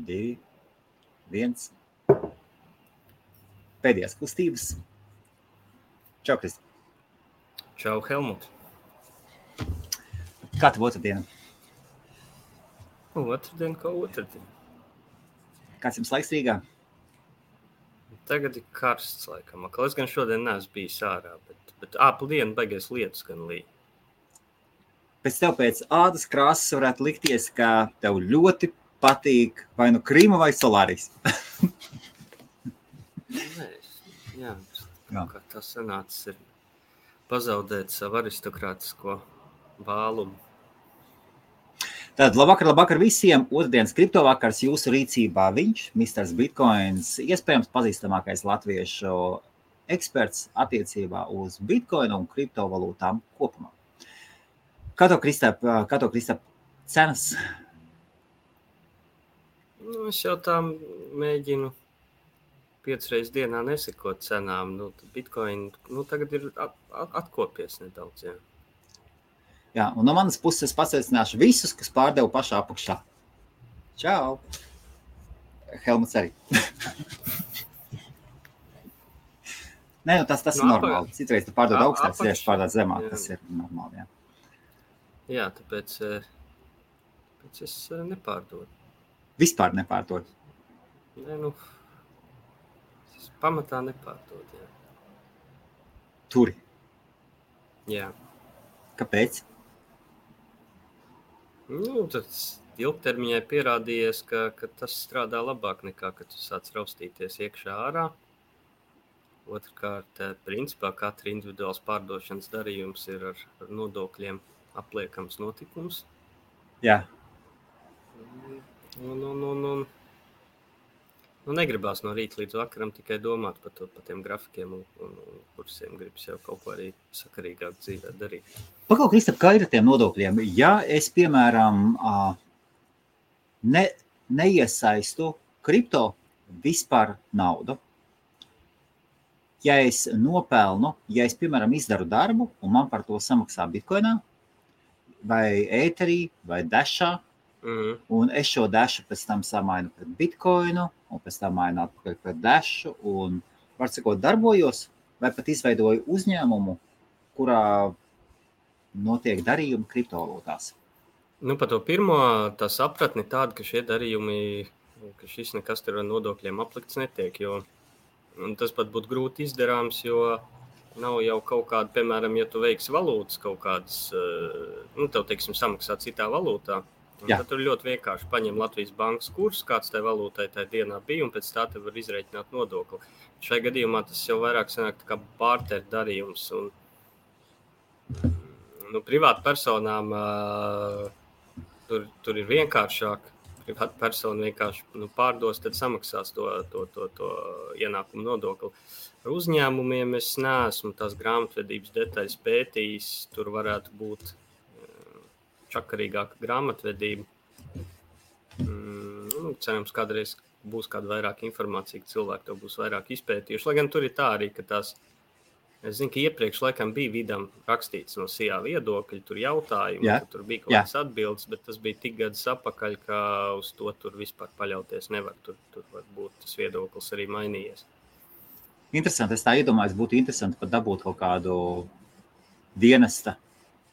2, 1. Pēdējās kustības. Čau, Kristi. Čau, Helmut. Kā tev otrdiena? Otrdien, kā otrdien. Kāds jums laiks Rīgā? Tagad ir karsts, laikam. Es gan šodien neesmu bijis ārā, bet dienu beigies lietus gan līja. Pēc ādas krāsas varētu likties, ka tev ļoti patīk vai nu Krīma vai Solāris. Jā, kā tas sanācis ir pazaudēt savu aristokrātisko vālumu. Tātad labvakar visiem. Otrdienas kriptovakars jūsu rīcībā viņš, Mr. Bitcoins, iespējams pazīstamākais latviešu eksperts attiecībā uz Bitcoinu un kriptovalūtām kopumā. Kā to Kristap cenas? Es jau tā mēģinu 5 reizes dienā nesekot cenām. Bitcoin tagad ir atkopies nedaudz, jā. Jā, un no manas puses es pasveicināšu visus, kas pārdeva pašā apakšā. Čau! Helmuts arī. Nē, tas ir normāli. Citreiz tu pārdod augstāk, citreiz pārdod zemāk. Tas ir normāli, jā. Jā, tāpēc es nepārdodu. Vispār nepārdod? Nē, es pamatā nepārdodu, jā. Turi? Jā. Kāpēc? Tad ilgtermiņā pierādījies, ka tas strādā labāk nekā, kad tu sāc raustīties iekšā ārā. Otrkārt, principā katra individuāls pārdošanas darījums ir ar nodokļiem apliekams notikums. Jā. Negribās no rīta līdz vakaram tikai domāt par tiem grafikiem un kursiem. Gribas jau kaut ko arī sakarīgāk dzīvē darīt. Pakau, Kristap, kā ir ar tiem nodokļiem? Ja es, piemēram, neiesaistu kripto vispār naudu, ja es nopelnu, ja es, piemēram, izdaru darbu un man par to samaksā Bitcoinā vai Etherī vai Dashā, un es šo Dashu pēc tam samainu pret Bitcoinu un pēc tam mainu atpakaļ pret Dashu un, var sakot, darbojos vai pat izveidoju uzņēmumu, kurā notiek darījumi kriptovalūtās. Par to pirmo tā sapratni tāda, ka šie darījumi, ka šis nekas tur ar nodokļiem aplikts netiek, jo tas pat būtu grūti izdarāms, jo nav jau kaut kāda, piemēram, ja tu veiksi valūtas kaut kādas, tev, teiksim, samaksā citā valūtā, tad tur ļoti vienkārši paņem Latvijas bankas kursu, kāds tai valūtai tajā dienā bija, un pēc tā tev var izreikināt nodokli. Šai gadījumā tas jau vairāk sanāk tā kā barter darījums, un privāta personām tur ir vienkāršāk. Privāta persona vienkārši pārdos, tad samaksās to ienākumu nodokli. Ar uzņēmumiem es neesmu tās grāmatvedības detaļas pētījis, tur varētu būt čakarīgāka grāmatvedība. Cerams, kādreiz būs kāda vairāk informācija, ka cilvēki to būs vairāk izpētījuši. Lai gan tur ir tā arī, ka tās, es zinu, ka iepriekš laikam bija vidam rakstīts no SIA viedokļi, tur jautājumi, ka tur bija kaut kādas atbildes, bet tas bija tik gadus apakaļ, ka uz to tur vispār paļauties nevar. Tur varbūt tas viedoklis arī mainījies. Interesanti, es tā iedomājos, būtu interesanti pat dabūt kaut kādu dienesta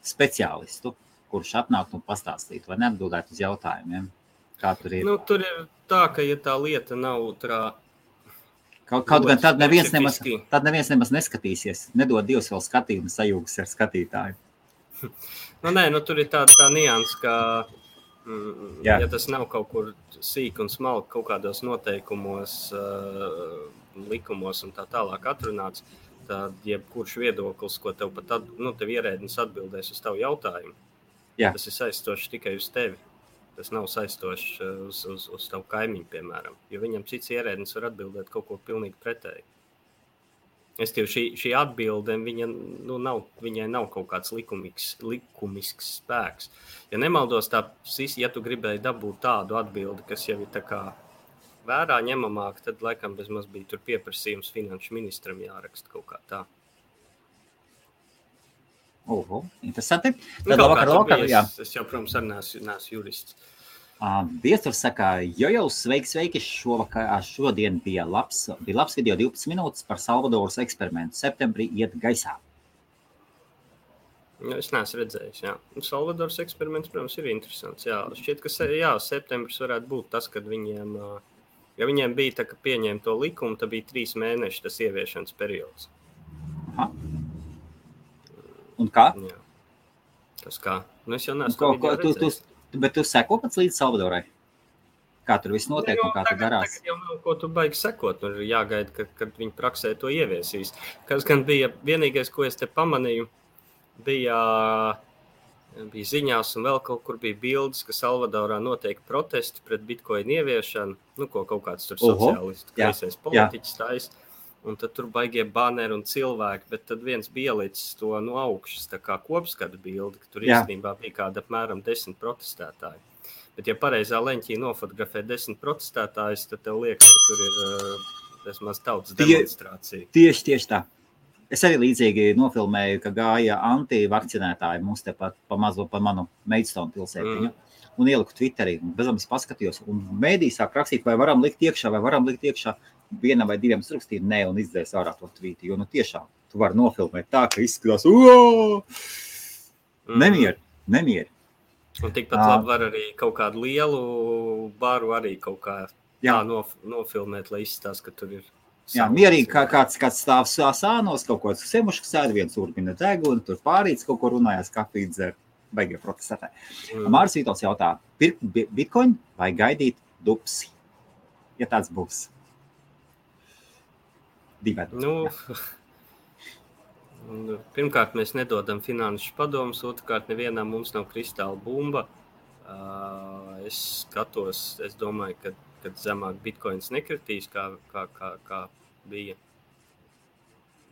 speciālistu, kurš atnāktu un pastāstītu vai neatbildētu uz jautājumiem, kā tur ir. Tur ir tā, ka ja tā lieta nav Kaut gan tad neviens nemaz neskatīsies. Nedod Dievs vēl skatījumu sajūgas ar skatītāju. Tur ir tā nianse, ka ja tas nav kaut kur sīk un smalki kaut kādos noteikumos, likumos un tā tālāk atrunāts, tad jebkurš viedoklis, ko tev pat tev ierēdnis atbildēs uz tavu jautājumu, tas ir saistošs tikai uz tevi. Tas nav saistošs uz tavu kaimiņu, piemēram, jo viņam cits ierēdnis var atbildēt kaut ko pilnīgi pretēji. Šī atbilde, viņai nav kaut kāds likumisks spēks. Ja nemaldos, ja tu gribēji dabūt tādu atbildi, kas jau ir tā kā vērā ņemamāk, tad laikam bezmaz bija tur pieprasījums finanšu ministram jāraksta kaut kā tā. Interesanti. Tad vakar, jā. Es jau, protams, arī neesmu jurists. Viesturs saka, jo, sveiki, šodien bija labs video 12 minūtes par Salvadoras eksperimentu. Septembrī iet gaisā. Es neesmu redzējis, jā. Salvadoras eksperiments, protams, ir interesants, jā. Šķiet, ka septembris varētu būt tas, kad viņiem, ja viņiem bija tā, ka pieņēma to likumu, tad bija 3 mēneši tas ieviešanas periods. Aha. Un kā? Jā. Tas kā? Es jau neesmu redzējis. Bet tu seko pats līdz Salvadorai? Kā tur viss notiek un kā tu darās? Tagad jau nav ko tu baigi sekot. Tur jāgaida, kad viņi praksē to ieviesīs. Kas gan bija vienīgais, ko es te pamanīju, bija ziņās un vēl kaut kur bija bildes, ka Salvadorā notiek protesti pret bitcoin ieviešanu, ko kaut kāds tur sociālistu kreisais politiķis taisa. Un tad tur baigie banneri un cilvēki, bet tad viens bija ielicis to no augšas, tā kā kopskatu bildi, ka tur īstenībā bija kāda apmēram 10 protestētāji. Bet ja pareizā leņķī nofotografē 10 protestētājus, tad tev liekas, ka tur ir vismaz tautas demonstrācija. Tieši tā. Es arī līdzīgi nofilmēju, ka gāja antivakcinētāji mums tepat pa manu Maidstone pilsētiņu. Un ieliku Twitterī, un bezam es paskatījos, un mēdī sāk rakstīt, vai varam likt iekšā, vienam vai diviem sarakstīju, nē, un izdzēs ārā to tvīti, jo tiešām tu vari nofilmēt tā, ka izskatās, nemieri. Un tikpat labi var arī kaut kādu lielu baru arī kaut kā tā nofilmēt, lai izstāst, ka tur ir. Jā, mierīgi kāds stāv sānos, kaut ko semuši sēd, viens urbina deguni, tur pārīts kaut ko runājās, kafiju dzer. Baigie protestētāji. Māris Vītols jautā, pirkt bitcoin vai gaidīt dupsi? Ja tāds būs. Pirmkārt, mēs nedodam finanšu padomus, otrkārt, nevienam mums nav kristāla bumba. Es skatos, es domāju, kad zemāk bitcoins nekritīs, kā bija.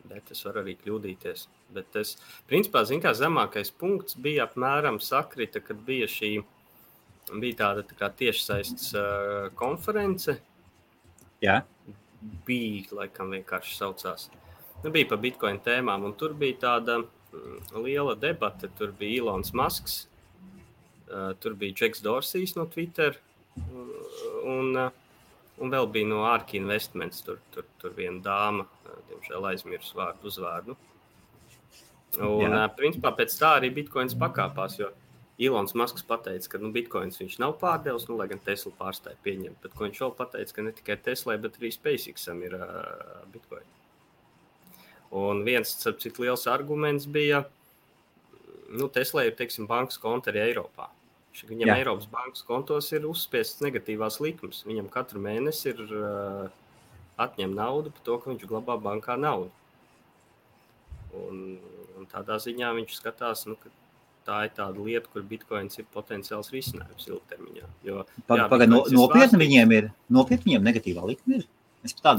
Bet es varu arī kļūdīties. Bet tas, principā, zemākais punkts bija apmēram sakrita, kad bija tāda tā kā tiešsaistes konference. Jā. Bija, laikam vienkārši saucās. Bija par bitcoin tēmām, un tur bija tāda liela debata. Tur bija Elons Musks, tur bija Jacks Dorsijs no Twitter, un vēl bija no ARK Investments, tur viena dāma, diemžēl aizmirs uzvārdu. Un, principā, pēc tā arī bitcoins pakāpās, jo Elons Musks pateica, ka bitcoins viņš nav pārdevis, lai gan Tesla pārstāja pieņemt, bet ko viņš vēl pateica, ka ne tikai Tesla, bet arī SpaceXam ir bitcoin. Un viens, cik liels arguments bija, Tesla ir, teiksim, bankas konta arī Eiropā. Viņam Eiropas bankas kontos ir uzspiestas negatīvās likmes. Viņam katru mēnesi ir atņem naudu par to, ka viņš glabā bankā naudu. Un tādā ziņā viņš skatās, ka tā ir tāda lieta, kur bitcoins ir potenciāls risinājums ilgtermiņā. Nopietni viņiem negatīvā likme ir?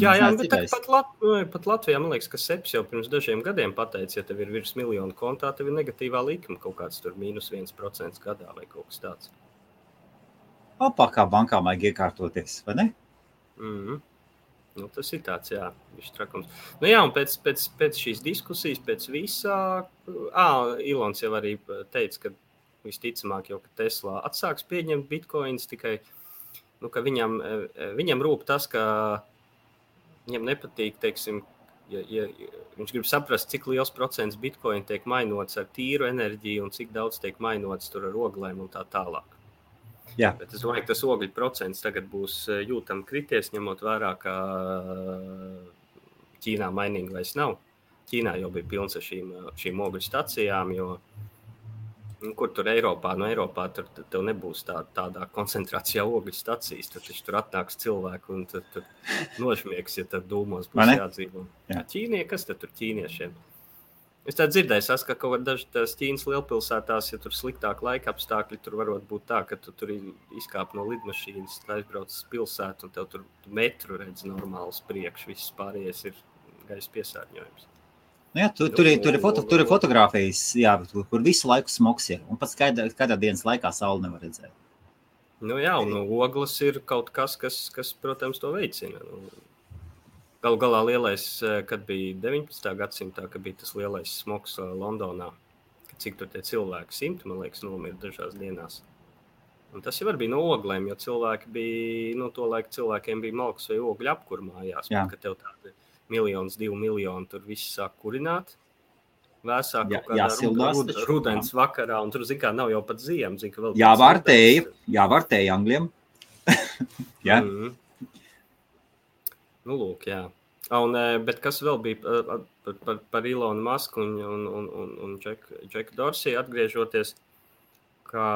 Jā, bet pat Latvijā, man liekas, ka Seps jau pirms dažiem gadiem pateica, ja tev ir virs 1 miljonu kontā, tev ir negatīvā likme kaut kāds tur -1% gadā vai kaut kas tāds. Kā bankām vajag iekārtoties, vai ne? Tas ir tāds, viņš trakums. Un pēc šīs diskusijas, pēc visā, Ilons jau arī teica, ka visticamāk jau, ka Tesla atsāks pieņemt bitcoins, tikai, ka viņam rūp tas, ka viņam nepatīk, teiksim, ja viņš grib saprast, cik liels procents bitcoin tiek mainots ar tīru enerģiju un cik daudz tiek mainots tur ar oglēm un tā tālāk. Jā. Bet es domāju, ka tas ogļu procents tagad būs jūtami krities, ņemot vērā, ka Ķīnā mainīgi vairs nav. Ķīnā jau bija pilns ar šīm ogļu stacijām, jo kur tur Eiropā, Eiropā tur tev nebūs tādā koncentrācijā ogļu stacijas, tad tur atnāks cilvēku un tad nožmiegs, ja tad dūmos būs jādzīvo. Ķīnie, kas tad tur ķīniešiem? Es tā dzirdēju, ka kaut kā dažas Ķīnas lielpilsētās, ja tur sliktāk laika apstākļi, tur varot būt tā, ka tu tur izkāp no lidmašīnas, aizbrauc uz pilsētu un tev tur metru redz normāls priekš, viss pārējais ir gaisa piesārņojums. Tur ir fotogrāfijas, kur visu laiku smogs ir, un pats kādā dienas laikā sauli nevar redzēt. Un ogles ir kaut kas, protams, to veicina. Galu galā lielais, kad bija 19. gadsimtā, kad bija tas lielais smogs Londonā, cik tur tie cilvēki 100, man liekas, nomira dažās dienās. Un tas jau arī bija no oglēm, jo cilvēki bija, to laiku cilvēkiem bija malks vai ogļu apkur mājās. Ka tev tādi 1, 2 miljoni tur viss sāk kurināt. Vēsā kaut kādā rudens vakarā, un tur, zin kā, nav jau pat ziem. Zin, ka vēl jāvārtēja angļiem. Jā. Nu, lūk, jā. Bet kas vēl bija par Elonu Musku un Jacku Dorsey atgriežoties, ka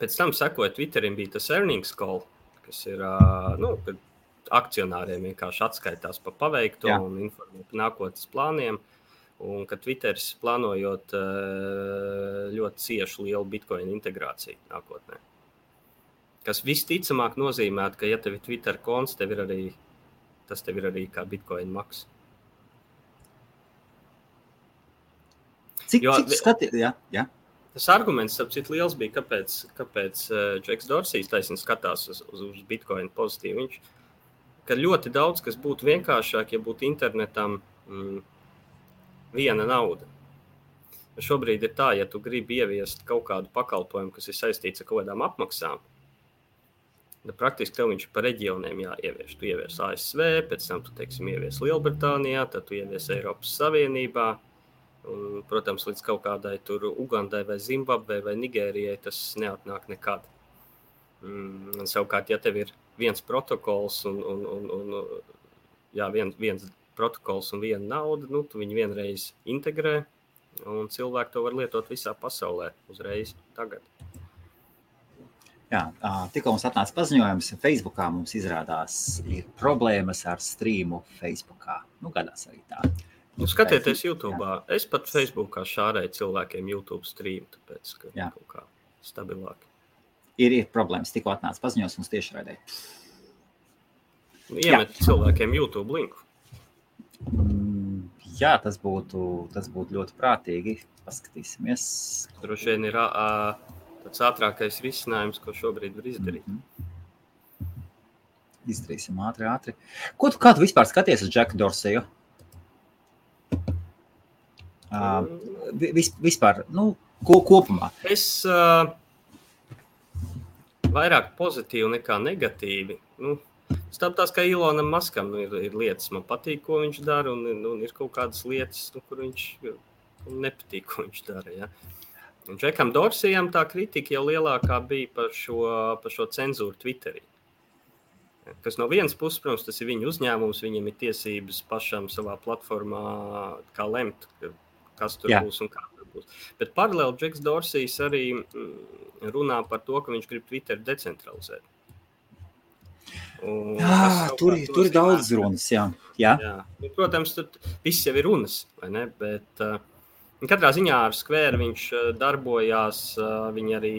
pēc tam sekoja Twitterim bija tas earnings call, kas ir, kad akcionāriem vienkārši atskaitās pa paveikto un informē par nākotnes plāniem, un ka Twitteris plānojot ļoti ciešu lielu Bitcoin integrāciju nākotnē. Kas visticamāk nozīmētu, ka ja tev ir Twitter konts, tas tev ir arī kā Bitcoin maks. Cik skatīt? Jā. Tas arguments, apcīt liels bija, kāpēc Jacks Dorsey taisni skatās uz Bitcoin pozitīvi. Ka ļoti daudz, kas būtu vienkāršāk, ja būtu internetam viena nauda. Šobrīd ir tā, ja tu gribi ieviest kaut kādu pakalpojumu, kas ir saistīts ar kaut kādām apmaksām, tad praktiski tev viņš par reģioniem jāievieš. Tu ievies ASV, pēc tam tu, ievies Lielbritānijā, tad tu ievies Eiropas Savienībā. Un, protams, līdz kaut kādai tur Ugandai vai Zimbabvei vai Nigērijai tas neatnāk nekad. Savukārt, ja tev ir viens protokols viens protokols un viena nauda, tu viņu vienreiz integrē, un cilvēki to var lietot visā pasaulē uzreiz tagad. Jā, tikko mums atnāca paziņojums, Facebookā mums izrādās ir problēmas ar streamu Facebookā. Gadās arī tā. Skatieties YouTube'ā. Es pat Facebookā šārēju cilvēkiem YouTube stream, tāpēc, ka kaut kā stabilāk. Ir problēmas, tikko atnāca paziņos mums tieši raidē. Iemet cilvēkiem YouTube linku. Jā, tas būtu ļoti prātīgi. Paskatīsimies. Droši vien ir tāds ātrākais risinājums, ko šobrīd var izdarīt. Izdarīsim ātri. Kā tu vispār skaties uz Jacku Dorseju? Vispār, kopumā. Es vairāk pozitīvi nekā negatīvi. Tās kā Elonam Muskam ir lietas, man patīk, ko viņš dara, un ir kaut kādas lietas, kur viņš nepatīk, ko viņš dara. Ja? Un Jackam Dorseyam tā kritika jau lielākā bija par šo cenzūru Twitterī. Kas no vienas puses, protams, tas ir viņa uzņēmums, viņam ir tiesības pašam savā platformā kā lemt, kas tur būs un kā tur būs. Bet paralēli Jacks Dorsejs arī runā par to, ka viņš grib Twitter decentralizēt. Tur ir daudz runas, jā. Protams, tad viss jau ir runas, vai ne? Bet katrā ziņā ar Square viņš darbojās, viņi arī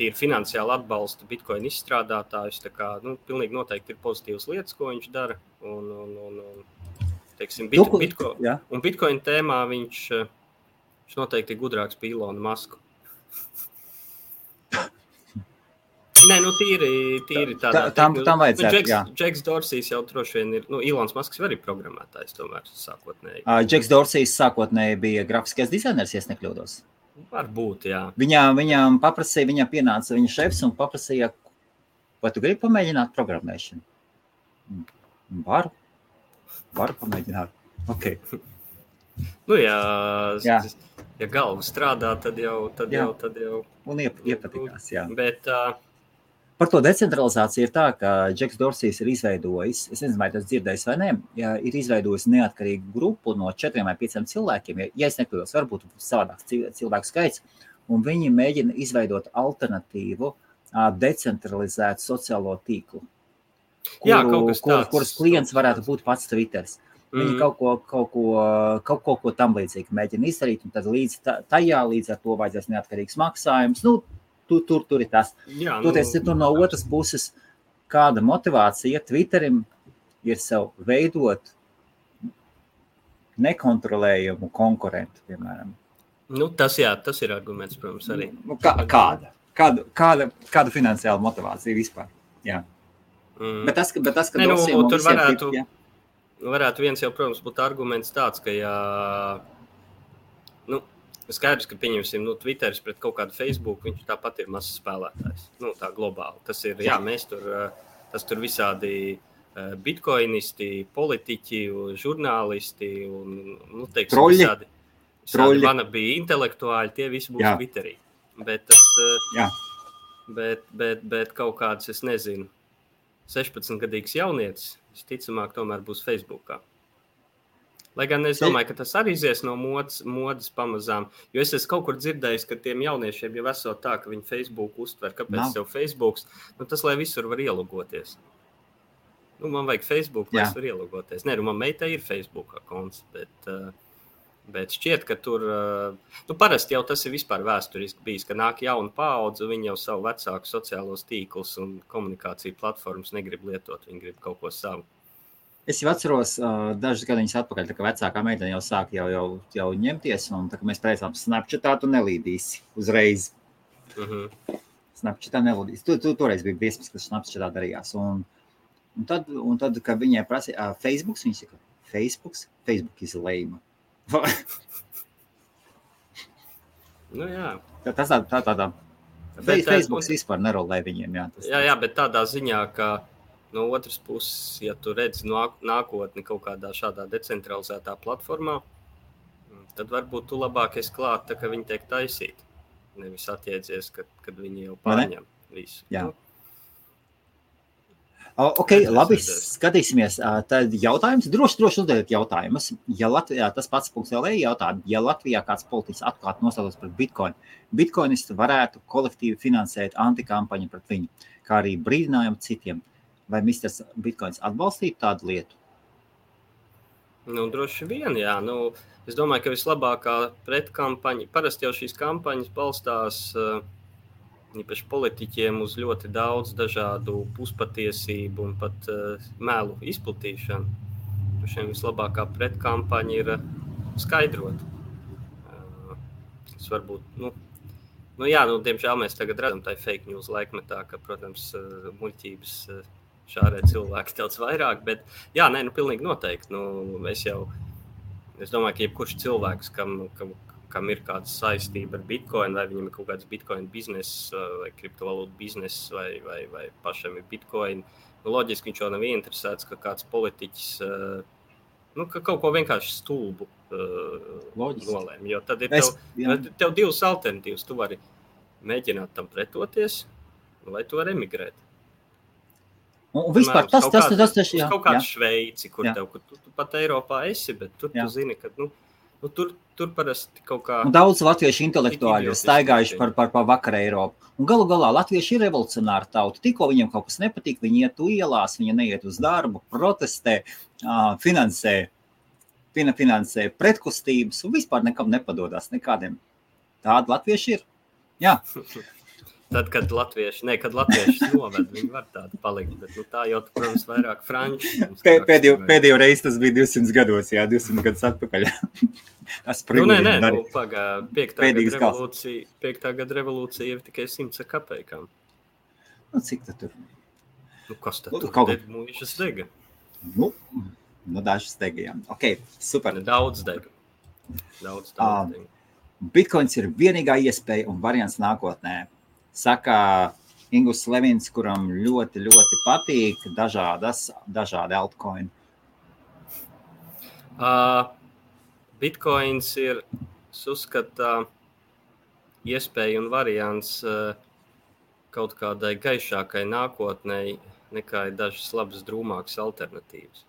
tīri finansiāli atbalsta Bitcoin izstrādātājus, tā kā, pilnīgi noteikti ir pozitīvas lietas, ko viņš dara, un Bitcoin tēmā viņš noteikti ir gudrāks par Elonu Musku. Nē, tīri tādā. Tam vajadzētu, Jacks Dorsejs jau droši vien ir, Elons Musks arī programmētājs tomēr sākotnēji. Jacks Dorsejs sākotnēji bija grafiskais dizainers, ja es nekļūdos. Varbūt, jā. Viņam paprasīja, viņam pienāca viņa šefs un paprasīja, vai tu gribi pamēģināt programmēšanu? Varu pamēģināt. Ok. Ja galva strādā, tad jau. Un iepatikās, jā. Bet par to decentralizāciju ir tā, ka Jacks Dorsejs ir izveidojis, es nezinu, vai tas dzirdējis vai ne, ir izveidojis neatkarīgu grupu no 4 vai 5 cilvēkiem, ja es nekļūdos, varbūt savādāks cilvēku skaits, un viņi mēģina izveidot alternatīvu decentralizētu sociālo tīklu, kuras klients varētu būt pats Twitters. Viņi kaut ko tam līdzīgi mēģina izdarīt, un tad līdz ar to vajadzēs neatkarīgs maksājums. Tur ir tas. Toties, tur no otras puses, kāda motivācija Twitterim ir sev veidot nekontrolējumu konkurentu, piemēram. Tas ir arguments, protams, arī. Kāda finansiāla motivācija vispār? Jā. Bet tas, ka tur varētu viens jau, protams, būt arguments tāds, ka Skaidrs, ka pieņemsim, Twitteris pret kaut kādu Facebook, viņš tāpat ir mazs spēlētājs. Tā globāli. Tas ir, mēs tas tur visādi bitcoinisti, politiķi, žurnālisti un, teiksim, Troļļi. visādi wannabe intelektuāļi, tie visi būs Twitterī. Bet bet kaut kāds, es nezinu, 16-gadīgs jaunietis, visticamāk, tomēr būs Facebookā. Lai gan es domāju, ka tas arī izies no modas pamazām, jo es esmu kaut kur dzirdējis, ka tiem jauniešiem jau esot tā, ka viņi Facebook uztver, kāpēc tev Facebooks, tas, lai visur var ielogoties. Man vajag Facebook, lai es var ielogoties. Nē, man meitai ir Facebook konts, bet šķiet, ka tur, parasti jau tas ir vispār vēsturiski bijis, ka nāk jauna paudze, viņi jau savu vecāku sociālos tīklus un komunikāciju platformas negrib lietot, viņi grib kaut ko savu. Es jau atceros dažus gadiņus atpakaļ, tā kā vecākā meitene jau sāk jau ņemties, un tā kā mēs preicām Snapchatā, tu nelīdīsi uzreiz. Snapchatā nelīdīsi. Tu toreiz bija briesmas, kas Snapchatā darījās. Un tad, kad viņai prasīja Facebooks, viņi saka, Facebook is lame. Jā. Tas tādā. Facebooks vispār nerolē viņiem, jā. Jā, bet tādā ziņā, ka no otras puses, ja tu redzi nākotni kaut kādā šādā decentralizētā platformā, tad varbūt tu labāk esi klāt, tā, ka viņi tiek taisīti. Nevis atjēdzies, kad viņi jau pārņem visu. Jā. Ok, labi, skatīsimies. Tad jautājums, droši uzdodiet jautājumus. Ja Latvijā, tas pats .lv jautā, ja Latvijā kāds politiķis atklāti nostātos pret Bitcoin, bitcoinisti varētu kolektīvi finansēt antikampaņu pret viņu, kā arī brīdinājumu citiem. Vai Misters Bitcoins atbalstītu tādu lietu? Droši vien, jā. Es domāju, ka vislabākā pretkampaņa, parasti jau šīs kampaņas balstās īpaši politiķiem uz ļoti daudz dažādu puspatiesību un pat melu izplatīšanu. Šiem vislabākā pretkampaņa ir skaidrot. Tas varbūt, diemžēl mēs tagad redzam tā fake news laikmetā, ka, protams, muļķības šārē cilvēki daudz vairāk, bet pilnīgi noteikti. Es domāju, ka jebkurš cilvēks, kam ir kāda saistība ar Bitcoin, vai viņam ir kaut kāds Bitcoin bizness, vai kriptovalūtu bizness, vai pašam ir Bitcoin, loģiski viņš jau nav ieinteresēts, ka kāds politiķis, ka kaut ko vienkārši stulbu nolēm. Jo tad ir tev divas alternatīvas. Tu vari mēģināt tam pretoties, vai tu vari emigrēt. Un vispār tas kaut kādu Šveici, kur tu pat Eiropā esi, bet tur tu zini, ka tur parasti kaut kā... Un daudz latviešu intelektuāļi ir staigājuši par vakar Eiropu. Un galu galā latvieši ir revolucionāri tauta. Tikko viņiem kaut kas nepatīk, viņi iet ielās, viņi neiet uz darbu, protestē, finansē pretkustības un vispār nekam nepadodās nekādiem. Tādi latvieši ir. Jā. Tad, kad latvieši noved, viņi var tādu palikt, bet tā jau, protams, vairāk franči. Pēdējo reizi tas bija 200 gados, 200 gadus atpakaļ. Piektā gada revolūcija ir tikai 100 kapekām. Cik tad tur? Kas tad tur? Mūžas dega. Dažas dega, jā. Ok, super. Daudz dega. Daudz dega. Bitcoins ir vienīgā iespēja un variants nākotnē. Saka Ingus Levins, kuram ļoti, ļoti patīk dažādi altcoin. Bitcoins ir, uzskata, iespēja un variants kaut kādai gaišākai nākotnei nekā ir dažas labas drūmākas alternatīvas,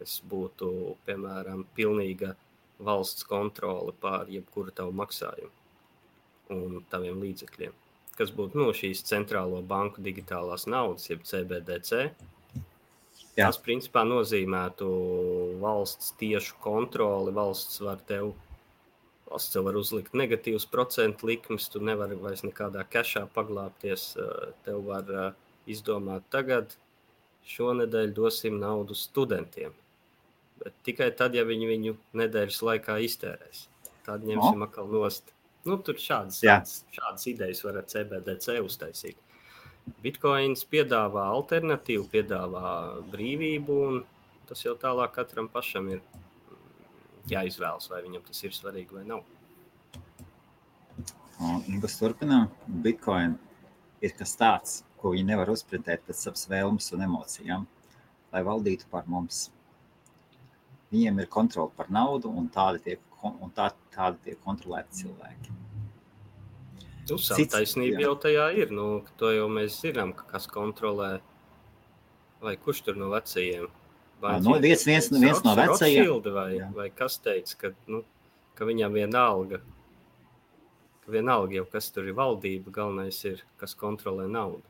kas būtu, piemēram, pilnīga valsts kontrole pār jebkuru tavu maksājumu un taviem līdzekļiem. Kas būtu šīs centrālo banku digitālās naudas, jeb CBDC. Tas, principā, nozīmētu valsts tiešu kontroli. Valsts tev var uzlikt negatīvas procentu likmes, tu nevari vairs nekādā kešā paglāpties. Tev var izdomāt tagad, šonedēļ dosim naudu studentiem. Bet tikai tad, ja viņi viņu nedēļas laikā iztērēs. Tad ņemsim atkal nost. Tur šādas idejas var ar CBDC uztaisīt. Bitcoins piedāvā alternatīvu, piedāvā brīvību, un tas jau tālāk katram pašam ir jāizvēlas, vai viņam tas ir svarīgi vai nav. Un Ingus turpinām. Bitcoin ir kas tāds, ko viņi nevar uzprintēt pēc savas vēlmes un emocijām, lai valdītu par mums. Viņiem ir kontrole par naudu, un tādi tiek kontrolēti cilvēki. Savu taisnību jau tajā ir. To jau mēs zinām, kas kontrolē. Vai kurš tur no vecajiem? Viens no vecajiem. Vai kas teica, ka viņam vienalga jau, kas tur ir valdība, galvenais ir, kas kontrolē naudu.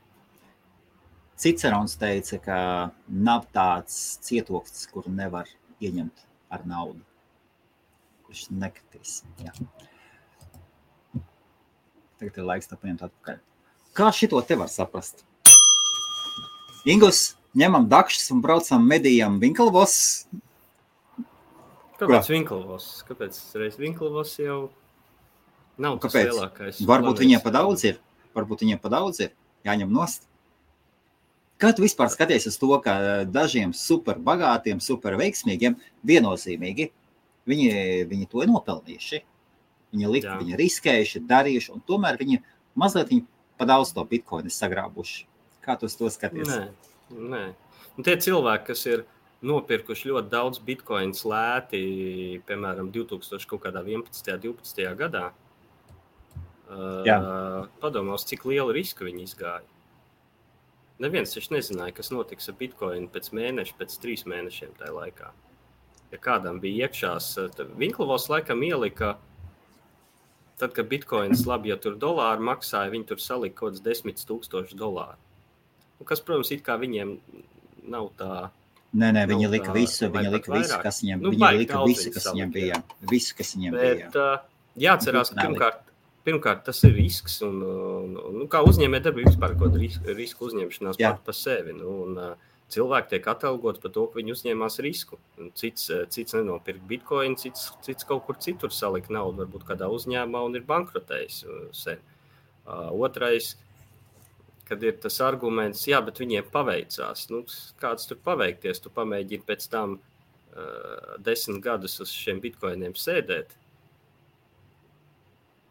Cicerons teica, ka nav tāds cietoksnis, kuru nevar ieņemt ar naudu, kurš nekritīs. Jā. Tagad ir laiks tā paņemt atpakaļ. Kā šito te var saprast? Ingus, ņemam dakšas un braucam medījam Vinkelvos. Kāpēc Vinkelvos? Kāpēc reiz Vinkelvos jau nav tas lielākais? Varbūt viņiem pa daudz ir. Jāņem nost. Kā tu vispār skaties uz to, ka dažiem super bagātiem, super veiksmīgiem viennozīmīgi viņi to ir nopelnījuši. Viņi riskējuši, darījuši, un tomēr viņi mazliet pa daudz to bitcoinu sagrābuši. Kā tu uz to skaties? Nē. Tie cilvēki, kas ir nopirkuši ļoti daudz bitcoins lēti, piemēram, 2011. 12. gadā, padomās, cik lielu risku viņi izgāja. Neviens taču nezināja, kas notiks ar bitcoinu pēc mēneša, pēc 3 mēnešiem tajā laikā. Ja kādam bija iekšās, Vinkelvos laikam ielika, tad, kad bitcoins labi, ja tur dolāri maksāja, viņi tur salika kaut kāds $10,000. Kas, protams, it kā viņiem nav tā... Nē, viņi lika visu, kas viņiem bija. Visu, kas viņiem bija. Bet jāatcerās, ka pirmkārt tas ir risks, un kā uzņēmē darbība vispār kaut risku uzņemšanās pat pa sevi. Cilvēki tiek atalgots par to, ka viņi uzņēmās risku. Cits nenopirka bitcoin, cits kaut kur citur salika naudu, varbūt kādā uzņēmumā un ir bankrotējis sen. Otrais, kad ir tas arguments, bet viņiem paveicās. Kāds tur paveikties, tu pamēģini pēc tam 10 gadus uz šiem bitcoiniem sēdēt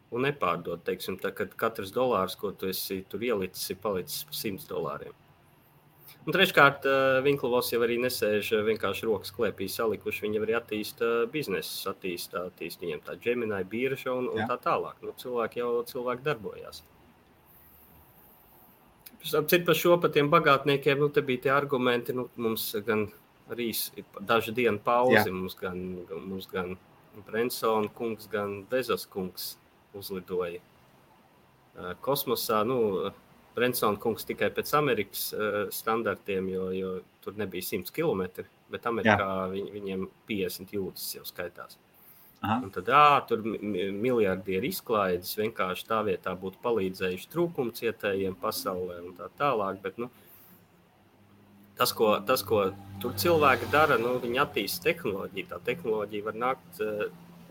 un nepārdot, teiksim, tā, kad katrs dolārs, ko tu esi tur ielicis, ir palicis par $100. Un treškārt, Vinkelvos jau arī nesēž vienkārši rokas klēpī salikuši, viņi arī attīsta biznesus, attīsta viņiem tā Gemini birža un tā tālāk. Cilvēki darbojās. Cit par šo, par tiem bagātniekiem, te bija tie argumenti, mums gan arī dažu dienu pauzi, mums gan Brensona kungs, gan Bezos kungs uzlidoja kosmosā. Brensona kungs tikai pēc Amerikas standartiem, jo tur nebija 100 kilometri, bet Amerikā viņiem 50 jūdzes jau skaitās. Aha. Un tad tur miljardieri izklaides vienkārši tā vietā būtu palīdzējuši trūkumcietējiem pasaulē un tā tālāk, bet tas, ko tur cilvēki dara, viņi attīsta tehnoloģiju. Tā tehnoloģija var nākt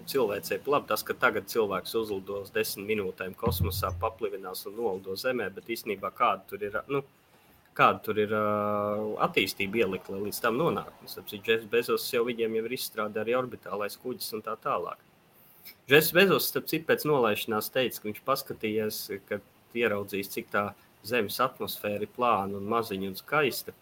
cilvēcei labi. Tas, ka tagad cilvēks uzlidos 10 minūtēm kosmosā, paplivinās un nolido zemē, bet īstenībā kāda tur ir attīstība ielikt, lai līdz tam nonāk. Jeffs Bezos viņiem jau ir izstrādājis arī orbitālais kuģis un tā tālāk. Jeffs Bezos, starp citu, pēc nolaišanās teica, ka viņš paskatījās, kad ieraudzīs, cik tā zemes atmosfēra ir plāna un maziņa un skaista,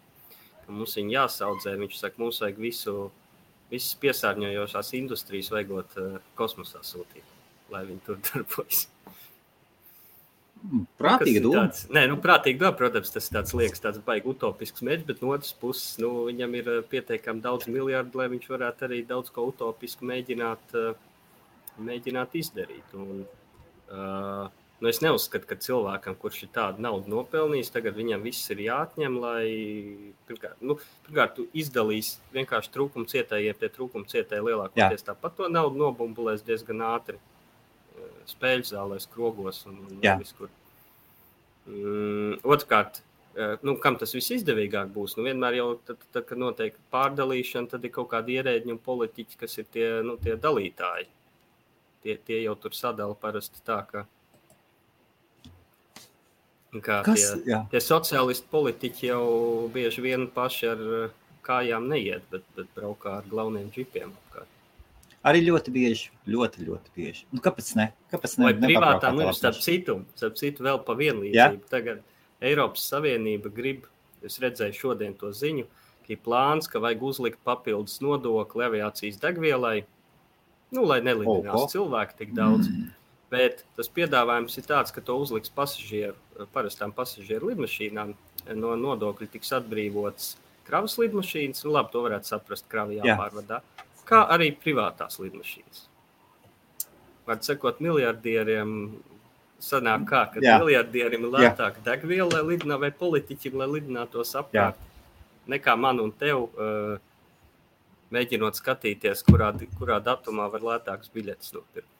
ka mums viņa jāsaudzē. Viņš saka, mums vajag visas piesārņojošās industrijas vajagot kosmosā sūtīt, lai viņi tur darbojas. Prātīgi doma. Prātīgi doma, protams, tas tāds liekas tāds baigi utopisks mērķis, bet no otras puses, viņam ir pietiekami daudz miljardu, lai viņš varētu arī daudz ko utopisku mēģināt izdarīt. Es neuzskatu, ka cilvēkam, kurš ir tādu naudu nopelnījis, tagad viņam viss ir jāatņem, lai pirmkārt tu izdalīs vienkārši trūkumcietējiem, tie trūkumcietēji lielākoties tāpat to naudu nobumbulēs diezgan ātri. Spēļu zālēs, krogos un viskur. Otrkārt, kam tas viss izdevīgāk būs? Vienmēr jau, tad, kad notiek pārdalīšana, tad ir kaut kādi ierēģi un politiķi, kas ir tie dalītāji. Tie jau tur sadala parasti tā, tie sociālisti politiķi jau bieži vien paši ar kājām neiet, bet braukā ar glauniem džipiem apkārt. Arī ļoti bieži, ļoti bieži. Nu, kāpēc ne? Vai privātām starp citu vēl pa vienlīdzību. Ja? Tagad Eiropas Savienība grib, es redzēju šodien to ziņu, ka ir plāns, ka vajag uzlikt papildus nodokli aviācijas degvielai, lai nelidinās cilvēki tik daudz. Bet tas piedāvājums ir tāds, ka to uzliks parastām pasažieru lidmašīnām. No nodokļa tiks atbrīvots kravas lidmašīnas, labi, to varētu saprast, kravi jāpārvadā, kā arī privātās lidmašīnas. Var sakot, miljardieriem sanāk kā, ka miljardieriem ir lētāk degviela, lai lidinā, vai politiķi, lai lidinātos apkārt, nekā man un tev, mēģinot skatīties, kurā datumā var lētāks biļetes nopirkt.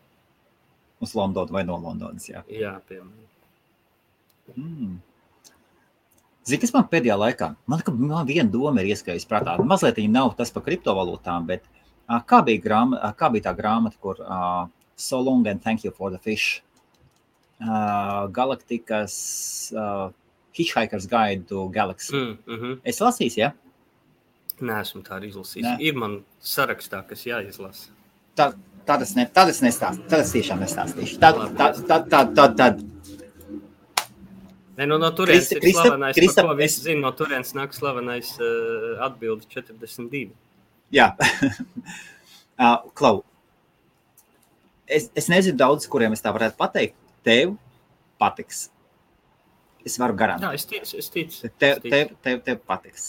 Uz Londonu vai no Londonas, jā. Jā, piemēram. Zini, kas man pēdējā laikā? Man viena doma ir ieskājusi prātā. Mazliet viņa nav tas par kriptovalūtām, bet kā bija tā grāmata, kur So Long and Thank You for the Fish? Galaktikas Hitchhiker's Guide to Galaxy. Es lasīju, ja? Neesmu tā arī izlasījis. Ir man sarakstā, kas jāizlasa. Tad es nestāstīšu. Tad es tiešām nestāstīšu. Tad. No turienes ir slavenais, par ko visi zina, no turienes nāk slavenais atbildi 42. Jā. Klau, es nezinu daudz, kuriem es tā varētu pateikt. Tev patiks. Es varu garantēt. Jā, es ticu. Tev patiks.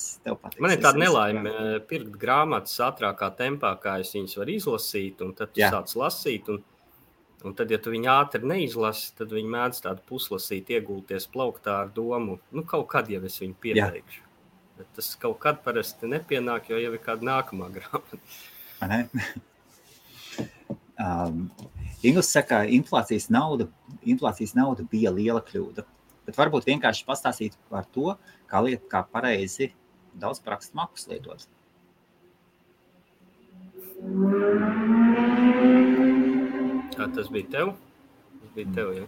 Man ir tāda nelaime pirkt grāmatas ātrākā tempā, kā es viņas varu izlasīt, un tad tu sāc lasīt, un tad, ja tu viņu ātri neizlasi, tad viņi mēdz tādu puslasīt, iegulties plauktā ar domu, kaut kad jau es viņu pieteikšu. Bet tas kaut kad parasti nepienāk, jo jau ir kāda nākamā grāmata. Inglis saka, inflācijas nauda bija liela kļūda. Bet varbūt vienkārši pastāstīt par to, kā pareizi daudz parakstu makus lietot. Tas bija tev? Tas bija tev, jā.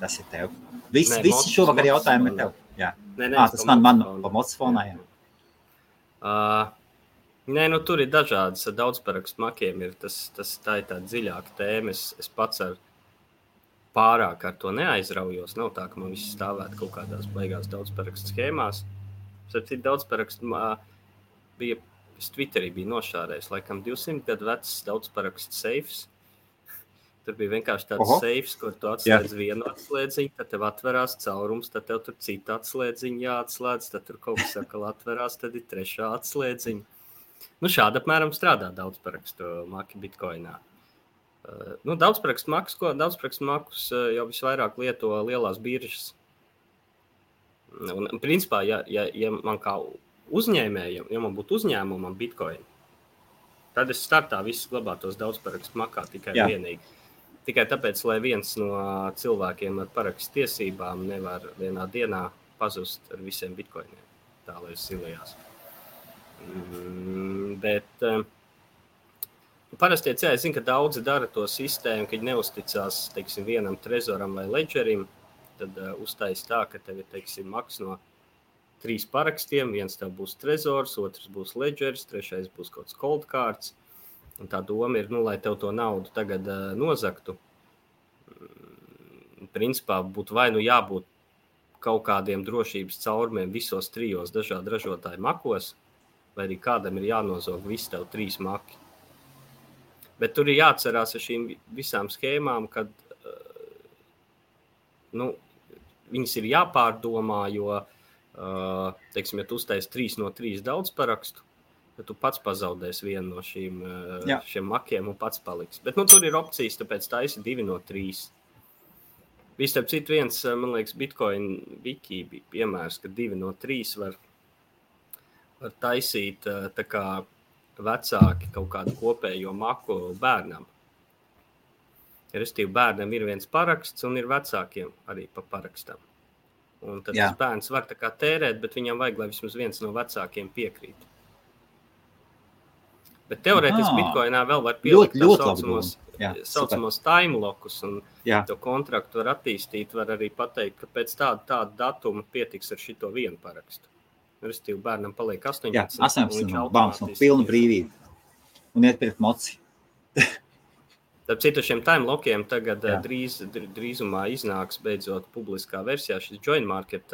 Tas ir tev. Visi šovakar jautājumi ir tev. Jā. Tas man pa mocofonā, jā. Tur ir dažādas daudz parakstu makiem. Tā ir tāda dziļāka tēma. Es pats pārāk ar to neaizraujos. Nav tā, ka man viss stāvētu kaut kādās baigās daudzparakstu schēmās. Daudzparakstu bija, es Twitterī biju nošārējis, laikam 200 gadu vecs daudzparakstu seifs. Tur bija vienkārši tāds seifs, kur tu atslēdz vienu atslēdziņu, tad tev atverās caurums, tad tev tur cita atslēdziņa jāatslēdz, tad tur kaut kas sakal atverās, tad ir trešā atslēdziņa. Šādi apmēram strādā daudzparakstu maki Bitcoinā. Daudzparakstu makus jau visvairāk lieto lielās biržas. Un, principā, ja man kā uzņēmējam, ja man būtu uzņēmumam Bitcoin, tad es startā viss glabātos daudzparakstu makā tikai vienīgi. Tikai tāpēc, lai viens no cilvēkiem ar parakstu tiesībām nevar vienā dienā pazust ar visiem Bitcoiniem. Tā, lai es silējās. Bet parasti, es zinu, ka daudzi dara to sistēmu, kad neusticās, teiksim, vienam trezoram vai ledžerim, tad uztais tā, ka tev ir, maks no 3 parakstiem, viens tev būs trezors, otrs būs ledžers, trešais būs kaut kāds cold cards, un tā doma ir, lai tev to naudu tagad nozaktu. Principā būtu vai jābūt kaut kādiem drošības caurumiem visos 3 dažādu ražotāju makos, vai arī kādam ir jānozog visi tev 3 maki. Bet tur ir jāatcerās ar šīm visām schēmām, kad viņas ir jāpārdomā, jo, teiksim, ja tu uztais 3 no 3 daudz parakstu, tad tu pats pazaudēs vienu no šiem makiem un pats paliks. Bet tur ir opcijas, tāpēc taisi 2 no 3. Starp citu viens, man liekas, Bitcoin wiki bija piemērs, ka 2 no 3 var taisīt tā kā vecāki kaut kādu kopējo maku bērnam. Restīvi bērnam ir viens paraksts un ir vecākiem arī pa parakstam. Un tad tas bērns var tā kā tērēt, bet viņam vajag, lai vismaz viens no vecākiem piekrīt. Bet teorētiski Bitcoinā vēl var pielikt saucamos time lockus un to kontraktu var attīstīt, var arī pateikt, ka pēc tāda datuma pietiks ar šito vienu parakstu. Restīvi bērnam paliek 18. Jā, 18. Bāms, pilna brīvība. Un iet pirkt moci. Starp citu, šiem time lokiem tagad drīzumā iznāks beidzot publiskā versijā šis Join Market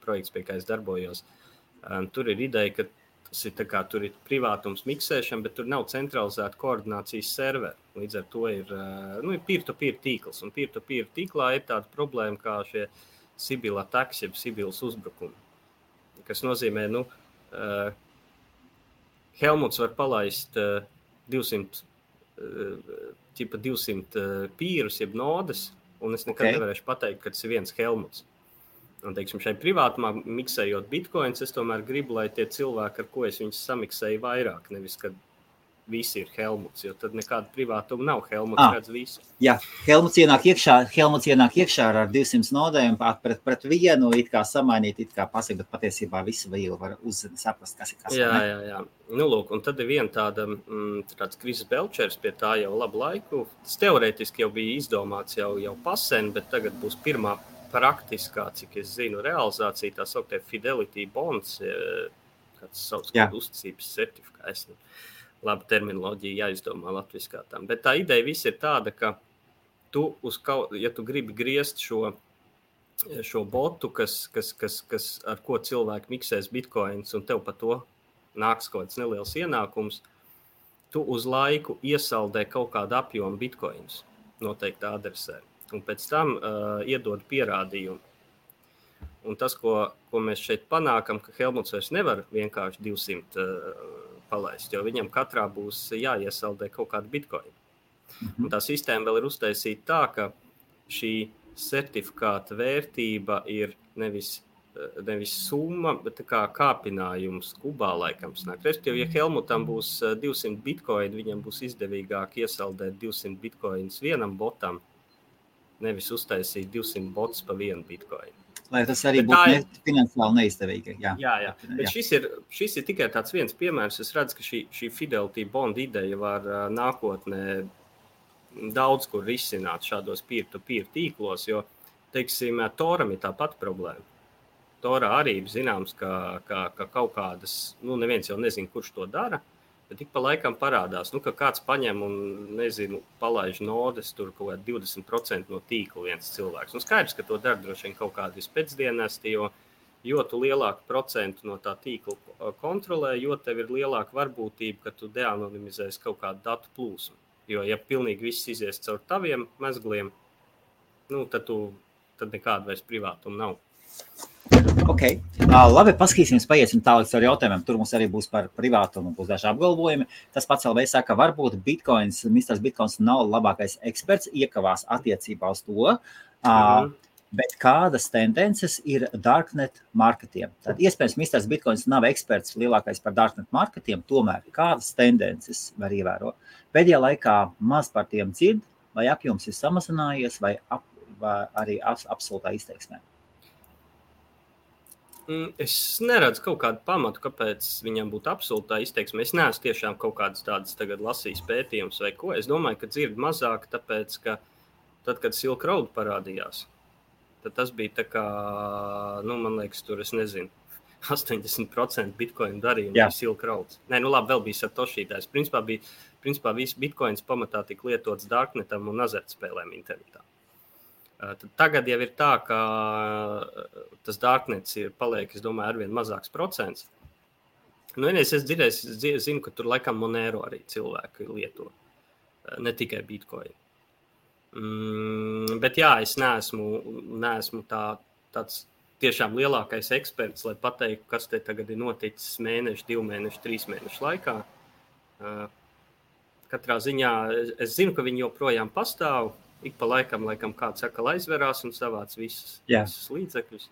projekts, pie kā es darbojos. Tur ir ideja, ka tas ir tā kā tur ir privātums miksēšana, bet tur nav centralizēta koordinācijas serveri. Līdz ar to ir peer-to-peer tīkls. Un peer-to-peer tīklā ir tāda problēma kā šie Sibyl attacks, jeb Sibyls uzbrukumi. Kas nozīmē, Helmuts var palaist 200 pīrus, jeb nodes, un es nekad nevarēšu pateikt, ka tas ir viens Helmuts. Un, teiksim, šai privātumā miksējot bitcoins, es tomēr gribu, lai tie cilvēki, ar ko es viņus samiksēju vairāk, nevis, kad visi ir Helmuts, jo tad nekāda privātuma nav. Helmuts redz visu. Jā, Helmuts ienāk iekšā ar 200 nodēm, pret vienu, it kā samainīt, it kā pasaka, bet patiesībā visu vēl var saprast, kas ir kas. Jā. Lūk, un tad ir viena tāds Kris Belčers pie tā jau labu laiku. Tas teorētiski jau bija izdomāts jau pasen, bet tagad būs pirmā praktiskā, cik es zinu, realizācija, tā sauktē Fidelity Bonds, kāds sauc kādu uzticības certifikāts. Laba terminoloģija jāizdomā latviskā tam. Bet tā ideja viss ir tāda, ka tu ja tu gribi griezt šo botu, kas ar ko cilvēki miksēs bitcoins, un tev par to nāks kaut kāds neliels ienākums, tu uz laiku iesaldē kaut kādu apjomu bitcoins noteikti adresē. Un pēc tam iedod pierādījumu. Un tas, ko mēs šeit panākam, ka Helmuts vairs nevar vienkārši 200 palaist, jo viņam katrā būs jāiesaldē kaut kādu bitcoin. Un tā sistēma vēl ir uztaisīta tā, ka šī certifikāta vērtība ir nevis summa, bet tā kā kāpinājums kubā laikam snāk. Respektīvi, ja Helmutam būs 200 bitcoin, viņam būs izdevīgāk iesaldēt 200 bitcoins vienam botam, nevis uztaisīt 200 bots pa vienu bitcoin. Lai tas arī būtu finansiāli neizdevīgi. Jā. Bet šis ir tikai tāds viens piemērs. Es redzu, ka šī Fidelity Bond ideja var nākotnē daudz kur risināt šādos peer-to-peer tīklos, jo, teiksim, Toram ir tā pati problēma. Torā arī zināms, ka kaut kādas, neviens jau nezina, kurš to dara, bet tik pa laikam parādās, ka kāds paņem un, palaiž nodes, tur kaut kādi 20% no tīkla viens cilvēks. Skaidrs, ka to dara droši vien kaut kādi pēcdienesti, jo tu lielāku procentu no tā tīkla kontrolē, jo tev ir lielāka varbūtība, ka tu deanonimizēsi kaut kādu datu plūsmu. Jo, ja pilnīgi viss izies caur taviem mezgliem, tad nekāda vairs privātuma nav. Ok, labi, paskatīsimies, paiesim tālāk ar jautājumiem. Tur mums arī būs par privātumu, būs daži apgalvojumi. Tas pats LV saka, varbūt Mr. Bitcoins nav labākais eksperts, iekavās attiecībā uz to, bet kādas tendences ir darknet marketiem? Tad iespējams, Mr. Bitcoins nav eksperts lielākais par darknet marketiem, tomēr kādas tendences var ievērot? Pēdējā laikā maz par tiem dzird, vai apjoms ir samazinājies, vai arī absolūtā izteiksmē? Es neredzu kaut kādu pamatu, kāpēc viņam būtu absolūtā izteiksme. Es neesmu tiešām kaut kādas tādas tagad lasījis pētījumus vai ko. Es domāju, ka dzird mazāk, tāpēc, ka tad, kad Silk Road parādījās, tad tas bija tā kā, man liekas, tur, es nezinu, 80% bitcoin darījumu bija Silk Road. Nē, labi, vēl bija Satoshi tās. Principā viss bitcoins pamatā tika lietots darknetam un azartspēlēm internetā. Tagad jau ir tā, ka tas darknets paliek, es domāju, arvien mazāks procents. Es zinu, ka tur laikam Monero arī cilvēki lieto, ne tikai Bitcoin. Bet jā, es neesmu tāds tiešām lielākais eksperts, lai pateiktu, kas te tagad ir noticis mēnešu, 2 mēnešu, 3 mēnešu laikā. Katrā ziņā es zinu, ka viņi joprojām pastāv. Ik pa laikam kāds saka, aizverās un savāc visus līdzekļus.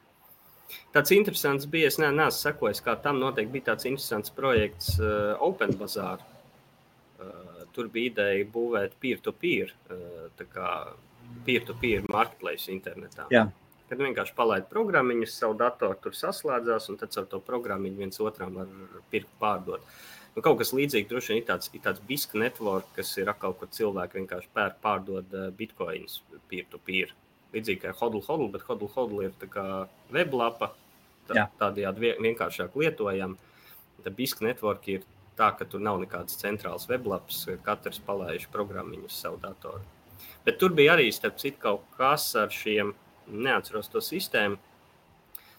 Tāds interesants bija, es neesmu sekojis, kā tam noteikti bija tāds interesants projekts Open Bazaar. Tur bija ideja būvēt peer-to-peer, tā kā peer-to-peer marketplace internetā. Jā. Kad vienkārši palaid programmiņus, savu datoru tur saslēdzās, un tad ar to programmiņu viens otram var pirkt pārdot. Kaut kas līdzīgi droši vien ir tāds BISC network, kas ir atkal, kur cilvēki vienkārši pārdod bitcoins peer-to-peer. Līdzīgi kā hodl, bet hodl ir tā kā weblapa, tādējādi vienkāršāk lietojam. Tad BISC network ir tā, ka tur nav nekāds centrāls weblaps, katrs palaiž programmiņu uz savu datoru. Bet tur bija arī, starp citu, kaut kas ar šiem, neatceros to sistēmu.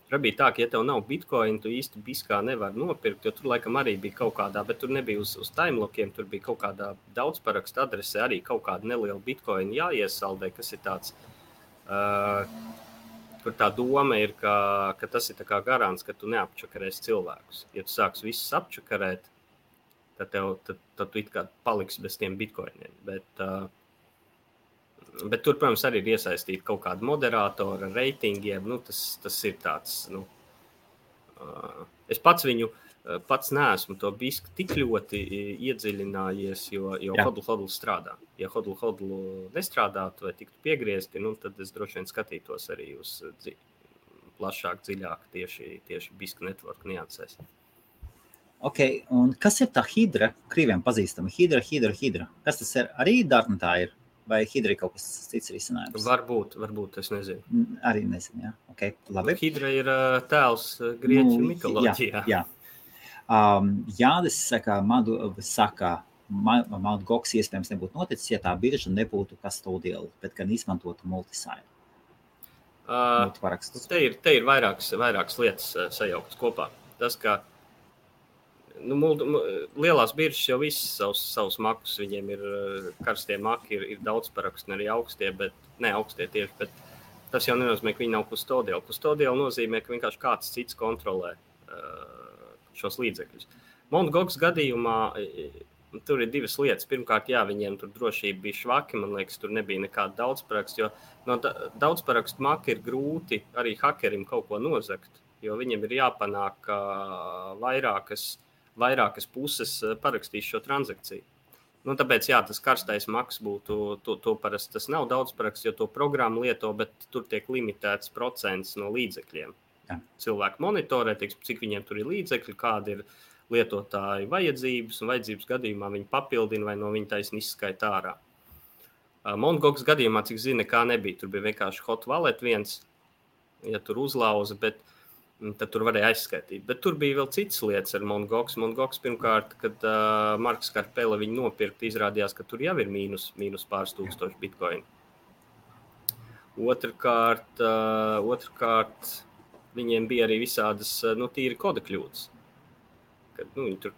Tur bija tā, ka, ja tev nav bitcoin, tu īsti biskā nevar nopirkt, jo tur laikam arī bija kaut kādā, bet tur nebija uz timelokiem, tur bija kaut kādā daudzparakstu adrese arī kaut kāda neliela bitcoin jāiesaldē, kas ir tāds, kur tā doma ir, ka tas ir tā kā garants, ka tu neapčakarēsi cilvēkus. Ja tu sāks visus apčakarēt, tad tu it kā paliksi bez tiem bitcoiniem. Bet tur, protams, arī ir iesaistīti kaut kādi moderatori ar reitingiem. Tas ir tāds, es pats neesmu to bisku tik ļoti iedziļinājies, jo hodl strādā. Ja hodl nestrādātu vai tiktu piegriezti, tad es droši vien skatītos arī uz plašāk, dziļāk tieši bisku network niansēs. Ok, un kas ir tā hidra? Krīviem pazīstama. Hidra. Kas tas ir? Arī Dartnetā ir? Vai hidra ir kaut kas cits risinājums? Varbūt, es nezinu. Arī nezinu, jā. Ok, labi. Hidra ir tēls grieķu mitoloģijā. Jā. Jānis saka, Mt. Gox iespējams nebūtu noticis, ja tā birža nebūtu custodial, bet gan izmantotu multisign. Multiparakstus. Te ir vairākas lietas sajauktas kopā. Tas, ka lielās biržas jau visas savus makus, viņiem ir karstie maki, ir daudz parakstu, arī augstie, bet tas jau nenozīmē, ka viņi nav custodial. Custodial nozīmē, ka vienkārši kāds cits kontrolē šos līdzekļus. Mt. Gox gadījumā tur ir divas lietas. Pirmkārt, viņiem tur drošība bija švaki, man liekas, tur nebija nekāda daudzparakstu, jo no daudzparakstu maka ir grūti arī hakerim kaut ko nozagt, jo viņiem ir jāpanāk vairākas puses parakstīs šo transakciju. Tāpēc, tas karstais maks būtu, to parasti tas nav daudz paraksts, jo to programmu lieto, bet tur tiek limitēts procents no līdzekļiem. Jā. Cilvēki monitorē, cik viņiem tur ir līdzekļi, kādi ir lietotāji vajadzības, un vajadzības gadījumā viņi papildina vai no viņa taisni izskaita ārā. Mt. Gox gadījumā, cik zina, kā nebija, tur bija vienkārši hot wallet viens, ja tur uzlauza, bet tad tur varēja aizskaitīt. Bet tur bija vēl citas lietas ar Mt. Gox. Mt. Gox pirmkārt, kad Marks Karpela viņu nopirkt, izrādījās, ka tur jau ir mīnus pāris tūkstoši bitcoin. Otrkārt, viņiem bija arī visādas tīri koda kļūdas. Kad,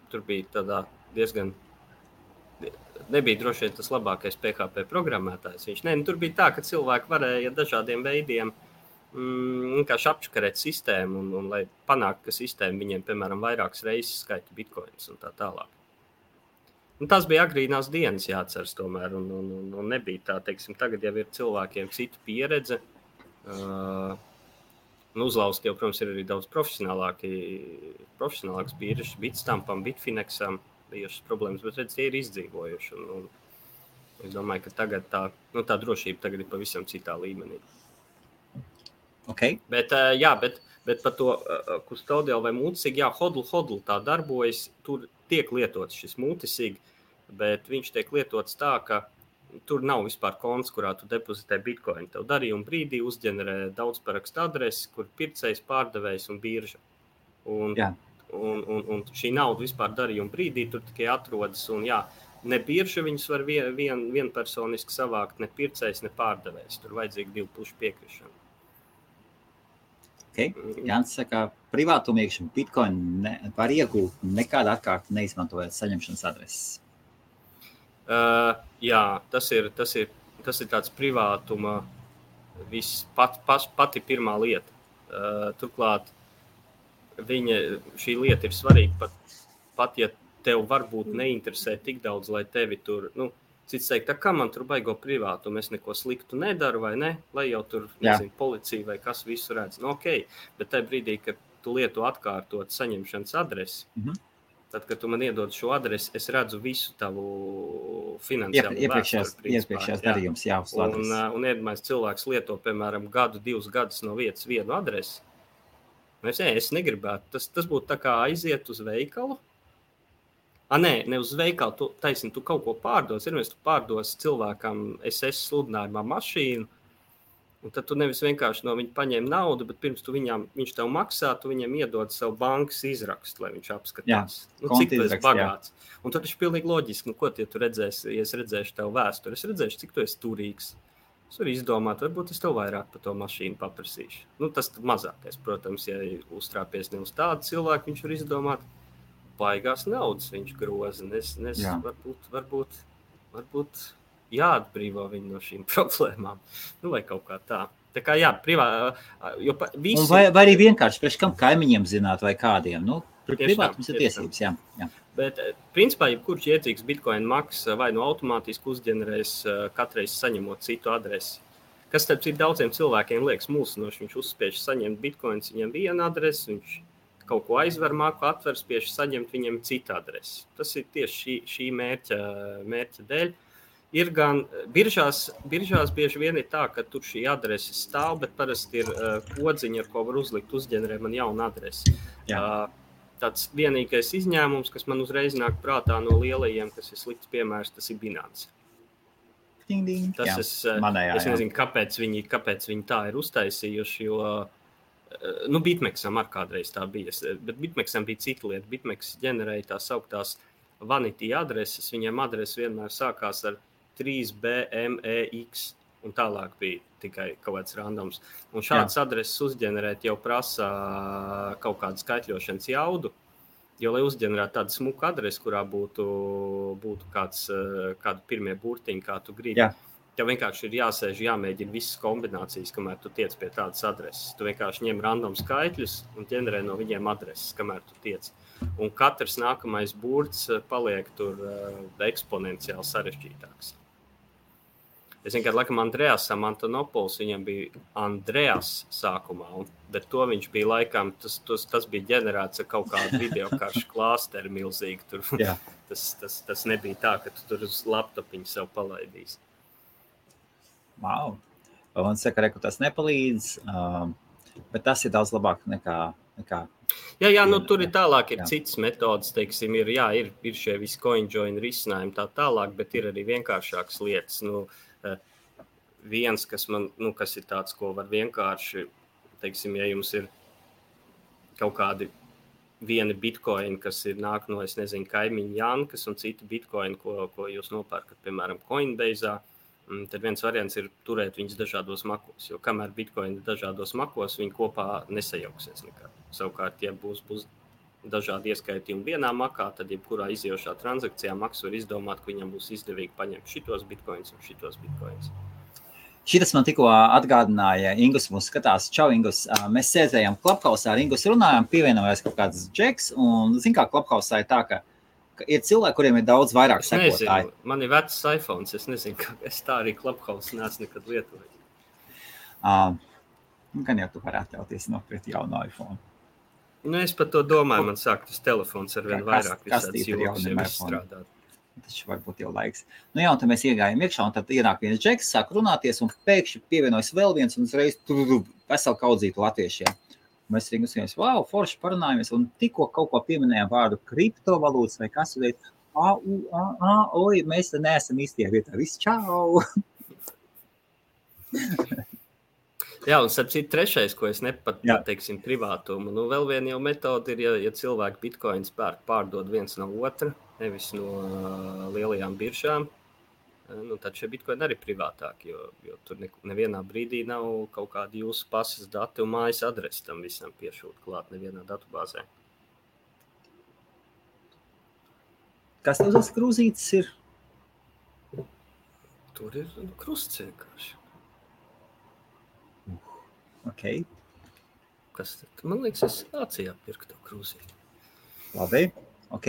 tur bija tādā diezgan, nebija droši vien tas labākais PHP programmētājs. Tur bija tā, ka cilvēki varēja dažādiem veidiem vienkārši apčakarēt sistēmu un lai panāktu, ka sistēma viņiem, piemēram, vairākas reizes skaita bitcoins un tā tālāk. Tas bija agrīnās dienas jāatceras tomēr un nebija tā, teiksim, tagad jau ir cilvēkiem cita pieredze. Uzlauzt jau, protams, ir arī daudz profesionālāks biržas, Bitstampam, Bitfinexam bijušas problēmas, bet redz, tie ir izdzīvojuši. Un es domāju, ka tagad tā drošība tagad ir pavisam citā līmenī. Okay. Bet par to custodial vai multisig, hodl tā darbojas, tur tiek lietots šis multisig, bet viņš tiek lietots tā, ka tur nav vispār konts, kurā tu depozitē bitcoin. Tev darījuma brīdī uzģenerē daudz parakstu adresi, kur pircējs, pārdevējs un birža. Un šī nauda vispār darījuma brīdī tur tikai atrodas, un ne birža viņus var vienpersoniski savākt, ne pircējs, ne pārdevējs. Tur vajadzīga divu pušu piekrišana. Okay. Jānis saka, privātumīgšana bitcoin var iegūt nekādu atkārtu neizmantojot saņemšanas adreses. Tas ir tāds privātuma pati pirmā lieta. Turklāt šī lieta ir svarīga pat ja tev varbūt neinteresē tik daudz, lai tevi tur, cits teikt, kā man tur baigo privātumu, es neko sliktu nedaru vai ne, lai jau tur, policija vai kas visu redz. Okay. Bet tajā brīdī, kad tu lieto atkārtot saņemšanas adresi, tad, kad tu man iedod šo adresi, es redzu visu tavu finansiālu iepriekšējās darījums, uz adresi. Un iedomājies, cilvēks lieto, piemēram, 2 gadus no vietas vienu adresi. Es negribētu. Tas būtu tā kā aiziet uz veikalu. Ne uz veikalu, tu kaut ko pārdos. Tu pārdos cilvēkam SS sludinājumā mašīnu, Un tad tu nevis vienkārši no viņa paņem naudu, bet pirms viņš tev maksā, tu viņam iedod savu bankas izrakstu, lai viņš apskatās. Cik tu esi bagāts. Un tad ir pilnīgi loģiski, ko tu redzēsi, ja es redzēšu tev vēsturi. Es redzēšu, cik tu esi turīgs. Es varu izdomāt, varbūt es tev vairāk par to mašīnu paprasīšu. Tas mazākais, protams, ja uztrāpies ne uz tādu cilvēku, viņš var izdomāt baigās naudas, viņš groza. Varbūt jāatbrīvo viņu no šīm problēmām. Vai kaut kā tā. Tā kā visi... Vai arī vienkārši priekš kam kaimiņiem zināt vai kādiem. Privātums ir tiesības, jā. Bet, principā, jebkurš iedzīgs Bitcoin maksas vai automātiski uzģenerēs katreiz saņemot citu adresi. Kas starp citu daudziem cilvēkiem liekas mulsinoši, viņš uzspiež saņemt Bitcoins, viņam viena adrese, viņš kaut ko aizver, māku atver, spiež saņemt viņam citu adresi. Tas ir tieši šī mērķa dēļ. Ir gan biržās bieži vien ir tā, ka tur šī adrese stāv, bet parasti ir kodziņa, ar ko var uzlikt uzģenerē man jaunu adresi. Tāds vienīgais izņēmums, kas man uzreiz nāk prātā no lielajiem, kas ir slikts piemērs, tas ir Binance. Es nezinu, kāpēc viņi tā ir uztaisījuši, jo BitMEXam ar kādreiz tā bija, bet BitMEXam bija cita lieta. BitMEX ģenerēja tās sauktās vanity adreses, viņiem adrese vienmēr sākās ar 3BMEX, un tālāk bija tikai kaut kāds randoms. Un šādas adreses uzģenerēt jau prasa kaut kādu skaitļošanas jaudu, jo, lai uzģenerētu tādu smuku adresi, kurā būtu kādu pirmie burtiņi, kā tu gribi, tev vienkārši ir jāsēž, jāmēģina visas kombinācijas, kamēr tu tiec pie tādas adreses. Tu vienkārši ņem random skaitļus un ģenerē no viņiem adreses, kamēr tu tiec. Un katrs nākamais burts paliek tur eksponenciāli sarežģītāks. Es vienkārši, laikam, Andreasam Antonopols, viņam bija Andreas sākumā, bet to viņš bija laikam, tas bija ģenerēts ar kaut kādu videokaršu klāsteri milzīgi. Tur. Tas nebija tā, ka tu tur uz laptopiņu sev palaidīs. Wow. Un saka, ka tas nepalīdz, bet tas ir daudz labāk nekā tur ir tālāk, ir citas metodas, teiksim, ir šie visi CoinJoin risinājumi tā tālāk, bet ir arī vienkāršākas lietas. Viens, kas ir tāds, ko var vienkārši, teiksim, ja jums ir kaut kādi vieni bitcoini, kas nāk no, es nezinu, kaimiņu Jankas un citi bitcoini, ko jūs nopērkat, piemēram, Coinbase'ā, tad viens variants ir turēt viņus dažādos makos, jo kamēr bitcoini dažādos makos, viņi kopā nesajauksies nekā. Savukārt, ja būs dažādi ieskaitījumi vienā makā, tad jebkurā iziejošā transakcijā maks var izdomāt, ka viņam būs izdevīgi paņemt šitos bitcoins un šitos bitcoins. Šitas man tikko atgādināja, Ingus mūs skatās. Čau, Ingus. Mēs sēdējām Clubhouse ar Ingus runājām, pievienojās kaut kāds džeks, un zin kā Clubhouse ir tā, ka ir cilvēki, kuriem ir daudz vairāk sekotāji. Man ir vecs iPhones, es nezinu, ka es tā arī Clubhouse neesmu nekad lietojis. Gan jau tu varētu ļauties nopirkt jaunu iPhone. Es par to domāju, man sāk tas telefons ar vien vairāk visādas jogas jau izstrādāt. Tas varbūt jau laiks. Un tad mēs iegājām iekšā, un tad ienāk viens džeks, sāk runāties, un pēkšņi pievienojas vēl viens, un uzreiz veselu kaudzītu latviešiem. Mēs arī uzskatījām, wow, forši parunājamies, un tikko kaut ko pieminējām vārdu kriptovalūtas vai kas, mēs te neesam īstajā vietā. Viss, čau! Jā, un starp citu trešais, ko es nepateiksim privātumu, vēl viena jau metode ir, ja cilvēki bitcoins pārdod viens no otra, nevis no lielajām biržām, tad šie bitcoini arī privātāki, jo tur nevienā brīdī nav kaut kādi jūsu pasas dati un mājas adresi tam visam piešūt klāt nevienā datubāzē. Kas tev tas krūzītis ir? Tur ir krusts vienkārši. Okay. Kas tad? Man liekas, es Vācijā pirku to krūzīti. Labi, ok.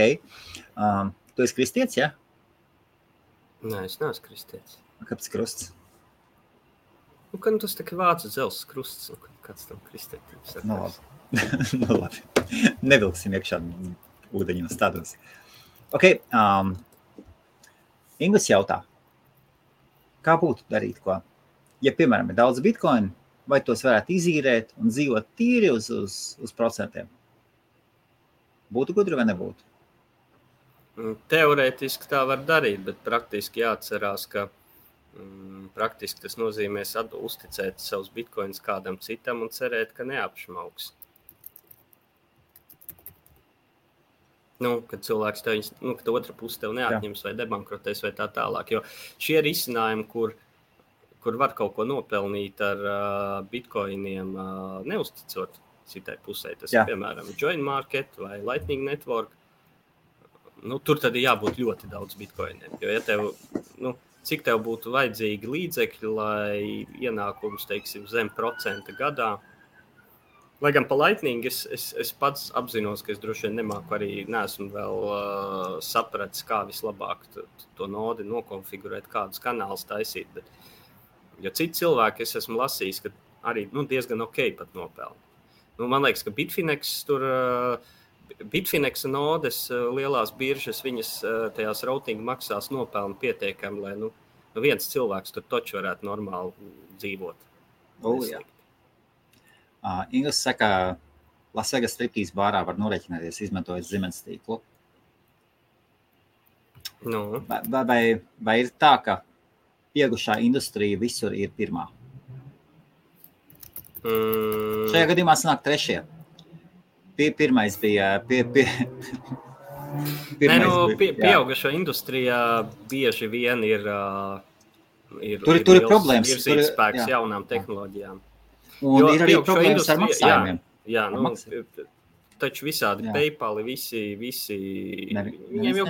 Tu esi kristietis, ja? Nē, es neesmu kristietis. Kāpēc krusts? Tas tā kā vācu dzelzs krusts, kāds tam kristietis. Labi. Nevilksim iekšā ūdeņos tādos. Ok. Ingus jautā, kā būtu darīt ko? Ja, piemēram, ir daudz bitcoinu, vai tos varētu izīrēt un dzīvot tīri uz procentiem? Būtu gudri vai nebūtu? Teorētiski tā var darīt, bet praktiski jāatcerās, ka Praktiski tas nozīmē uzticēt savus bitcoins kādam citam un cerēt, ka neapšmauks. Kad cilvēks tev, kad otra puse tev neatņems vai debankrotēs vai tā tālāk. Jo šie risinājumi, kur var kaut ko nopelnīt ar bitcoiniem, neuzticot citai pusē, tas ir piemēram Join Market vai Lightning Network, tur tad ir jābūt ļoti daudz bitcoiniem. Jo ja tev, cik tev būtu vajadzīgi līdzekļi, lai ienākums, teiksim, zem procenta gadā. Lai gan pa Lightning es pats apzinos, ka es droši vien nemāku arī, neesmu vēl sapratis, kā vislabāk to nodi nokonfigurēt, kādus kanālus taisīt. Bet, jo citi cilvēki es esmu lasījis, ka arī diezgan ok pat nopelna. Man liekas, ka Bitfinex nodes lielās biržas, viņas tajās routing maksās nopelna pietiekami, lai viens cilvēks tur toču varētu normāli dzīvot. Jā. Ingas saka, Las Vegas striptīs bārā var norēķināties, izmantojot Siemens tīklu. Vai ir tā, ka pieaugušā industrija visur ir pirmā? Šajā gadījumā sanāk trešie. Pirmais bija... Pieaugušo industrijā bieži vien ir tur ir problēmas. Virzītspēks jaunām tehnoloģijām. Un ir arī problēmas ar maksājumiem. Taču visādi PayPal, visi viņiem jau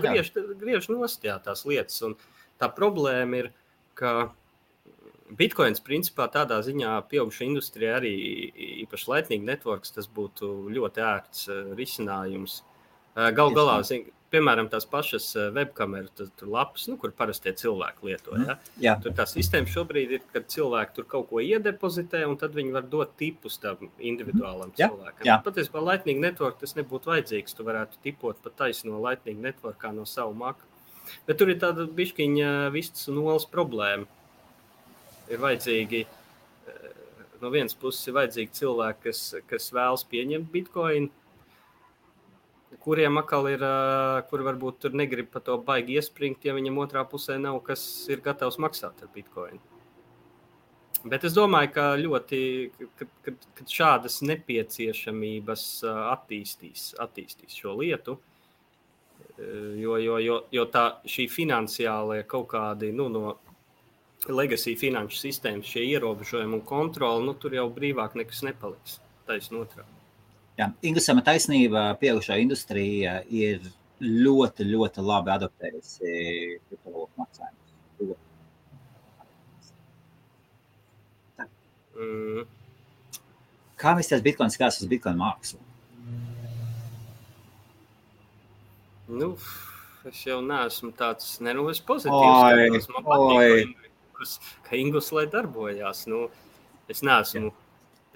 griež nost tās lietas. Un tā problēma ir, ka Bitcoins principā tādā ziņā pieauguša industrijā arī īpaši Lightning Networks, tas būtu ļoti ērts risinājums. Galu galā, piemēram, tās pašas webkameras lapas, kur parastie cilvēki lieto. Tur tā sistēma šobrīd ir, kad cilvēki tur kaut ko iedepozitē, un tad viņi var dot tipus tam individuālam cilvēkam. Patiesībā Lightning Network tas nebūtu vajadzīgs. Tu varētu tipot pat taisno Lightning Networkā no savu maku. Bet tur ir tāda bišķiņa vistas un olas problēma. Ir vajadzīgi, no vienas puses ir vajadzīgi cilvēki, kas vēlas pieņemt Bitcoin, kuriem atkal ir, kur varbūt tur negrib pa to baigi iespringt, ja viņam otrā pusē nav, kas ir gatavs maksāt ar Bitcoin. Bet es domāju, ka kad šādas nepieciešamības attīstīs šo lietu, jo šī finansiālie kaut kādi, no legacy finanšu sistēmas, šie ierobežojumi un kontroli, tur jau brīvāk nekas nepaliks, taisn otrādi. Ingusam taisnība, pieaugušā industrija ir ļoti, ļoti labi adaptējusi kriptovalūtu maksājumus. Kā visties Bitcoins skās uz Bitcoin mākslu? Es jau neesmu tāds, es pozitīvs, man patīk, ka Ingus lai darbojās. Es neesmu.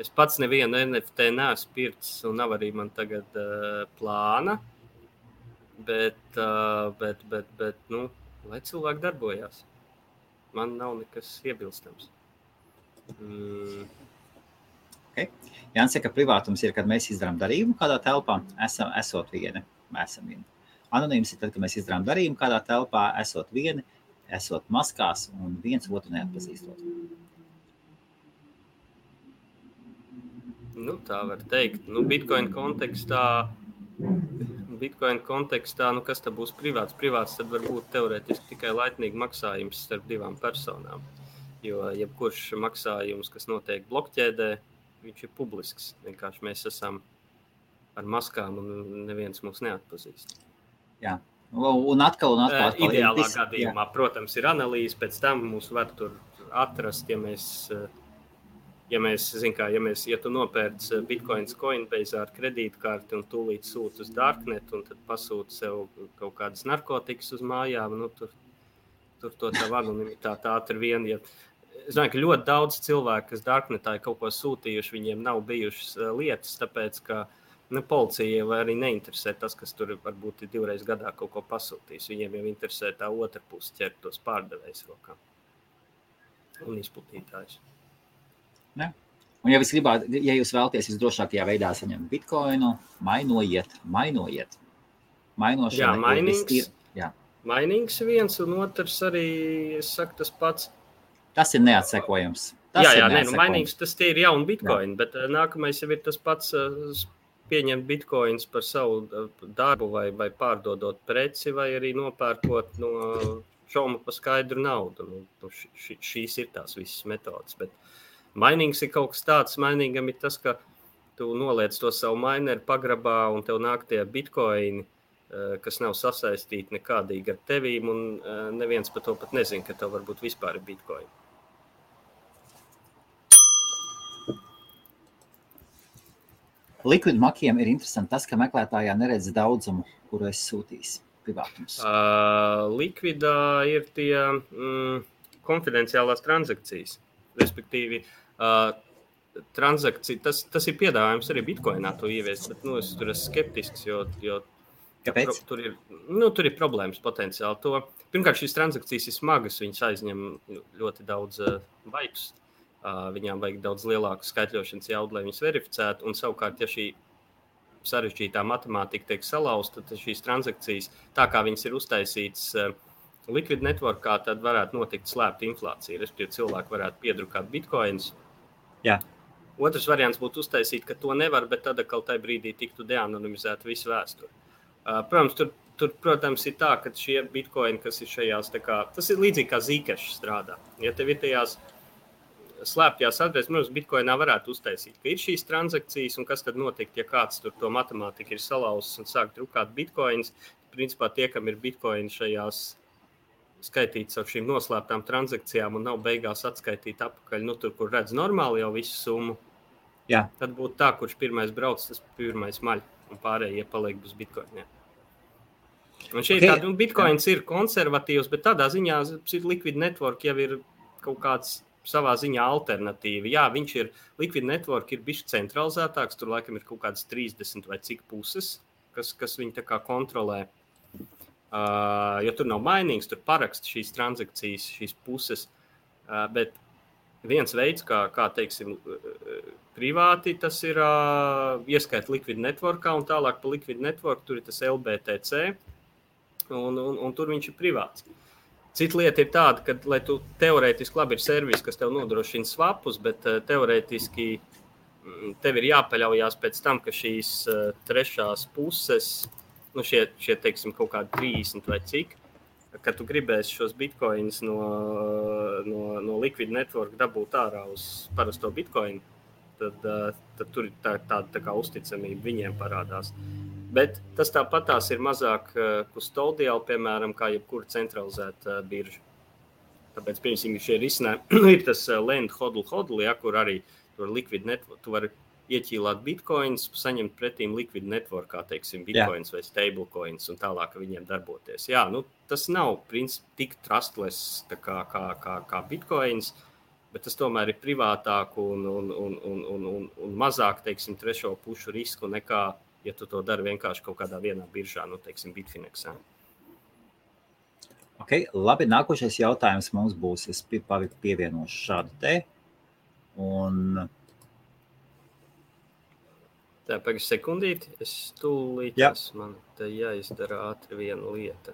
Es pats nevienu NFT neesmu pircis un nav arī man tagad plāna, bet lai cilvēki darbojās. Man nav nekas iebilstams. Okay. Jānis saka, ka privātums ir, kad mēs izdarām darījumu kādā telpā, esot vieni. Anonīms ir tad, kad mēs izdarām darījumu kādā telpā, esot vieni, esot maskās un viens otru neatpazīstot. Tā var teikt. Bitcoin kontekstā, kas tad būs privāts? Privāts tad var būt teorētiski tikai Lightning maksājums starp divām personām. Jo jebkurš maksājums, kas notiek blokķēdē, viņš ir publisks. Vienkārši mēs esam ar maskām un neviens mūs neatpazīst. Jā. Un atkal. Ideālā gadījumā, protams, ir analīze, pēc tam mūs var tur atrast, ja tu nopērc Bitcoins Coinbase ar kredītkarti un tūlīt sūti uz Darknet un tad pasūti sev kaut kādas narkotikas uz mājām, tur to tavu anonimitāti ātri vien. Es domāju, ka ļoti daudz cilvēku, kas Darknetā ir kaut ko sūtījuši, viņiem nav bijušas lietas, tāpēc, ka policija vai arī neinteresē tas, kas tur varbūt ir 2 reizes gadā kaut ko pasūtījis. Viņiem jau interesē tā otra puse ķert tos pārdevējus rokā un izplatītājus. Ne? Un ja jūs vēlaties visdrošākajā veidā saņemt Bitcoinu, mainojiet. Mainošana Mainings viens un otrs arī, es saku tas pats, Tas ir neatsekojams. Mainīgs tas tie ir jauni bitcoini, bet nākamais jau ir tas pats pieņemt bitcoins par savu darbu vai pārdodot preci vai arī nopērkot no šauma pa skaidru naudu. Šīs ir tās visas metodas, bet mainīgs ir kaut kas tāds, mainīgam ir tas, ka tu noliec to savu mineru pagrabā un tev nāk tie bitcoini, kas nav sasaistīti nekādīgi ar tevīm, un neviens par to pat nezina, ka tev varbūt vispār ir bitcoini. Liquid makiem ir interesanti tas, ka meklētājā neredz daudzumu, kuru es sūtīs privātums. Liquidā ir tie konfidenciālās transakcijas, respektīvi transakcija, tas ir piedāvājums arī bitcoinā to ieviest, bet es tur esmu skeptisks, jo Kāpēc? Tur ir problēmas potenciāli. Pirmkārt, šīs transakcijas ir smagas, viņas aizņem ļoti daudz baitus. Viņām vajag daudz lielāku skaitļošanas jaudu, lai viņas verificētu. Un savukārt, ja šī sarežģītā matemātika tiek salauzta, tad šīs transakcijas, tā kā viņas ir uztaisītas Liquid Networkā, tad varētu notikt slēpta inflācija. Respektīvi, cilvēki varētu piedrukāt bitcoins. Jā. Otrs variants būtu uztaisīt, ka to nevar, bet tad atkal tajā brīdī tiktu deanonimizēta visu vēsturi. Protams, tur, protams, ir tā, ka šie bitcoini, kas ir šajās, tas ir līdzīgi kā Zcash strādā. Ja tev ir tajās slēptajās adreses, protams, bitcoinā varētu uztaisīt, ka ir šīs transakcijas, un kas tad notikt, ja kāds tur to matemātiku ir salauzis un sāk drukāt bitcoins. Principā tie, kam ir bitcoini šajās skaitīts ar šīm noslēptām transakcijām un nav beigās atskaitīt apakaļ, tur, kur redz normāli jau visu summu, Jā. Tad būtu tā, kurš pirmais brauc, tas pirmais maļ. Un pārējie paliek bez bitcoiniem. Un šeit tādi bitcoins ir konservatīvs, bet tādā ziņā Liquid Network jau ir kaut kāds savā ziņā alternatīva. Jā, Liquid Network ir bišķi centralizētāks, tur laikam ir kaut kādas 30 vai cik puses, kas viņi tā kā kontrolē. Jo tur nav mainīgs, tur parakst šīs transakcijas, šīs puses, bet viens veids, kā teiksim, privāti, tas ir ieskait Liquid Networkā un tālāk pa Liquid Network, tur ir tas LBTC un tur viņš ir privāts. Cita lieta ir tāda, ka, lai tu teorētiski labi ir servis, kas tev nodrošina swapus, bet teorētiski tev ir jāpaļaujās pēc tam, ka šīs trešās puses, šie teiksim, kaut kādi 30 vai cik, kad tu gribēsi šos bitcoins no Liquid Network dabūt ārā uz parasto bitcoinu, tad tur ir tāda kā uzticamība viņiem parādās. Bet tas tāpatās ir mazāk custodial, piemēram, kā jebkura centralizēta birža. Tāpēc, piemēram, šie risinājumi ir tas lend hodl, ja, kur arī tur Liquid Network, tu vari ieķīlāt bitcoins, saņemt pretīm Liquid Networkā, teiksim, bitcoins vai stablecoins un tālāk viņiem darboties. Jā, tas nav tik trustless kā bitcoins, bet tas tomēr ir privātāk un mazāk, teiksim, trešo pušu risku nekā, ja tu to dari vienkārši kaut kādā vienā biržā, teiksim, Bitfinexā. Okay, labi, nākošais jautājums mums būs, es pievienošu šādu te, un... Tā, pagaid sekundīti, es tūlīt, man te jāizdara ātri viena lieta.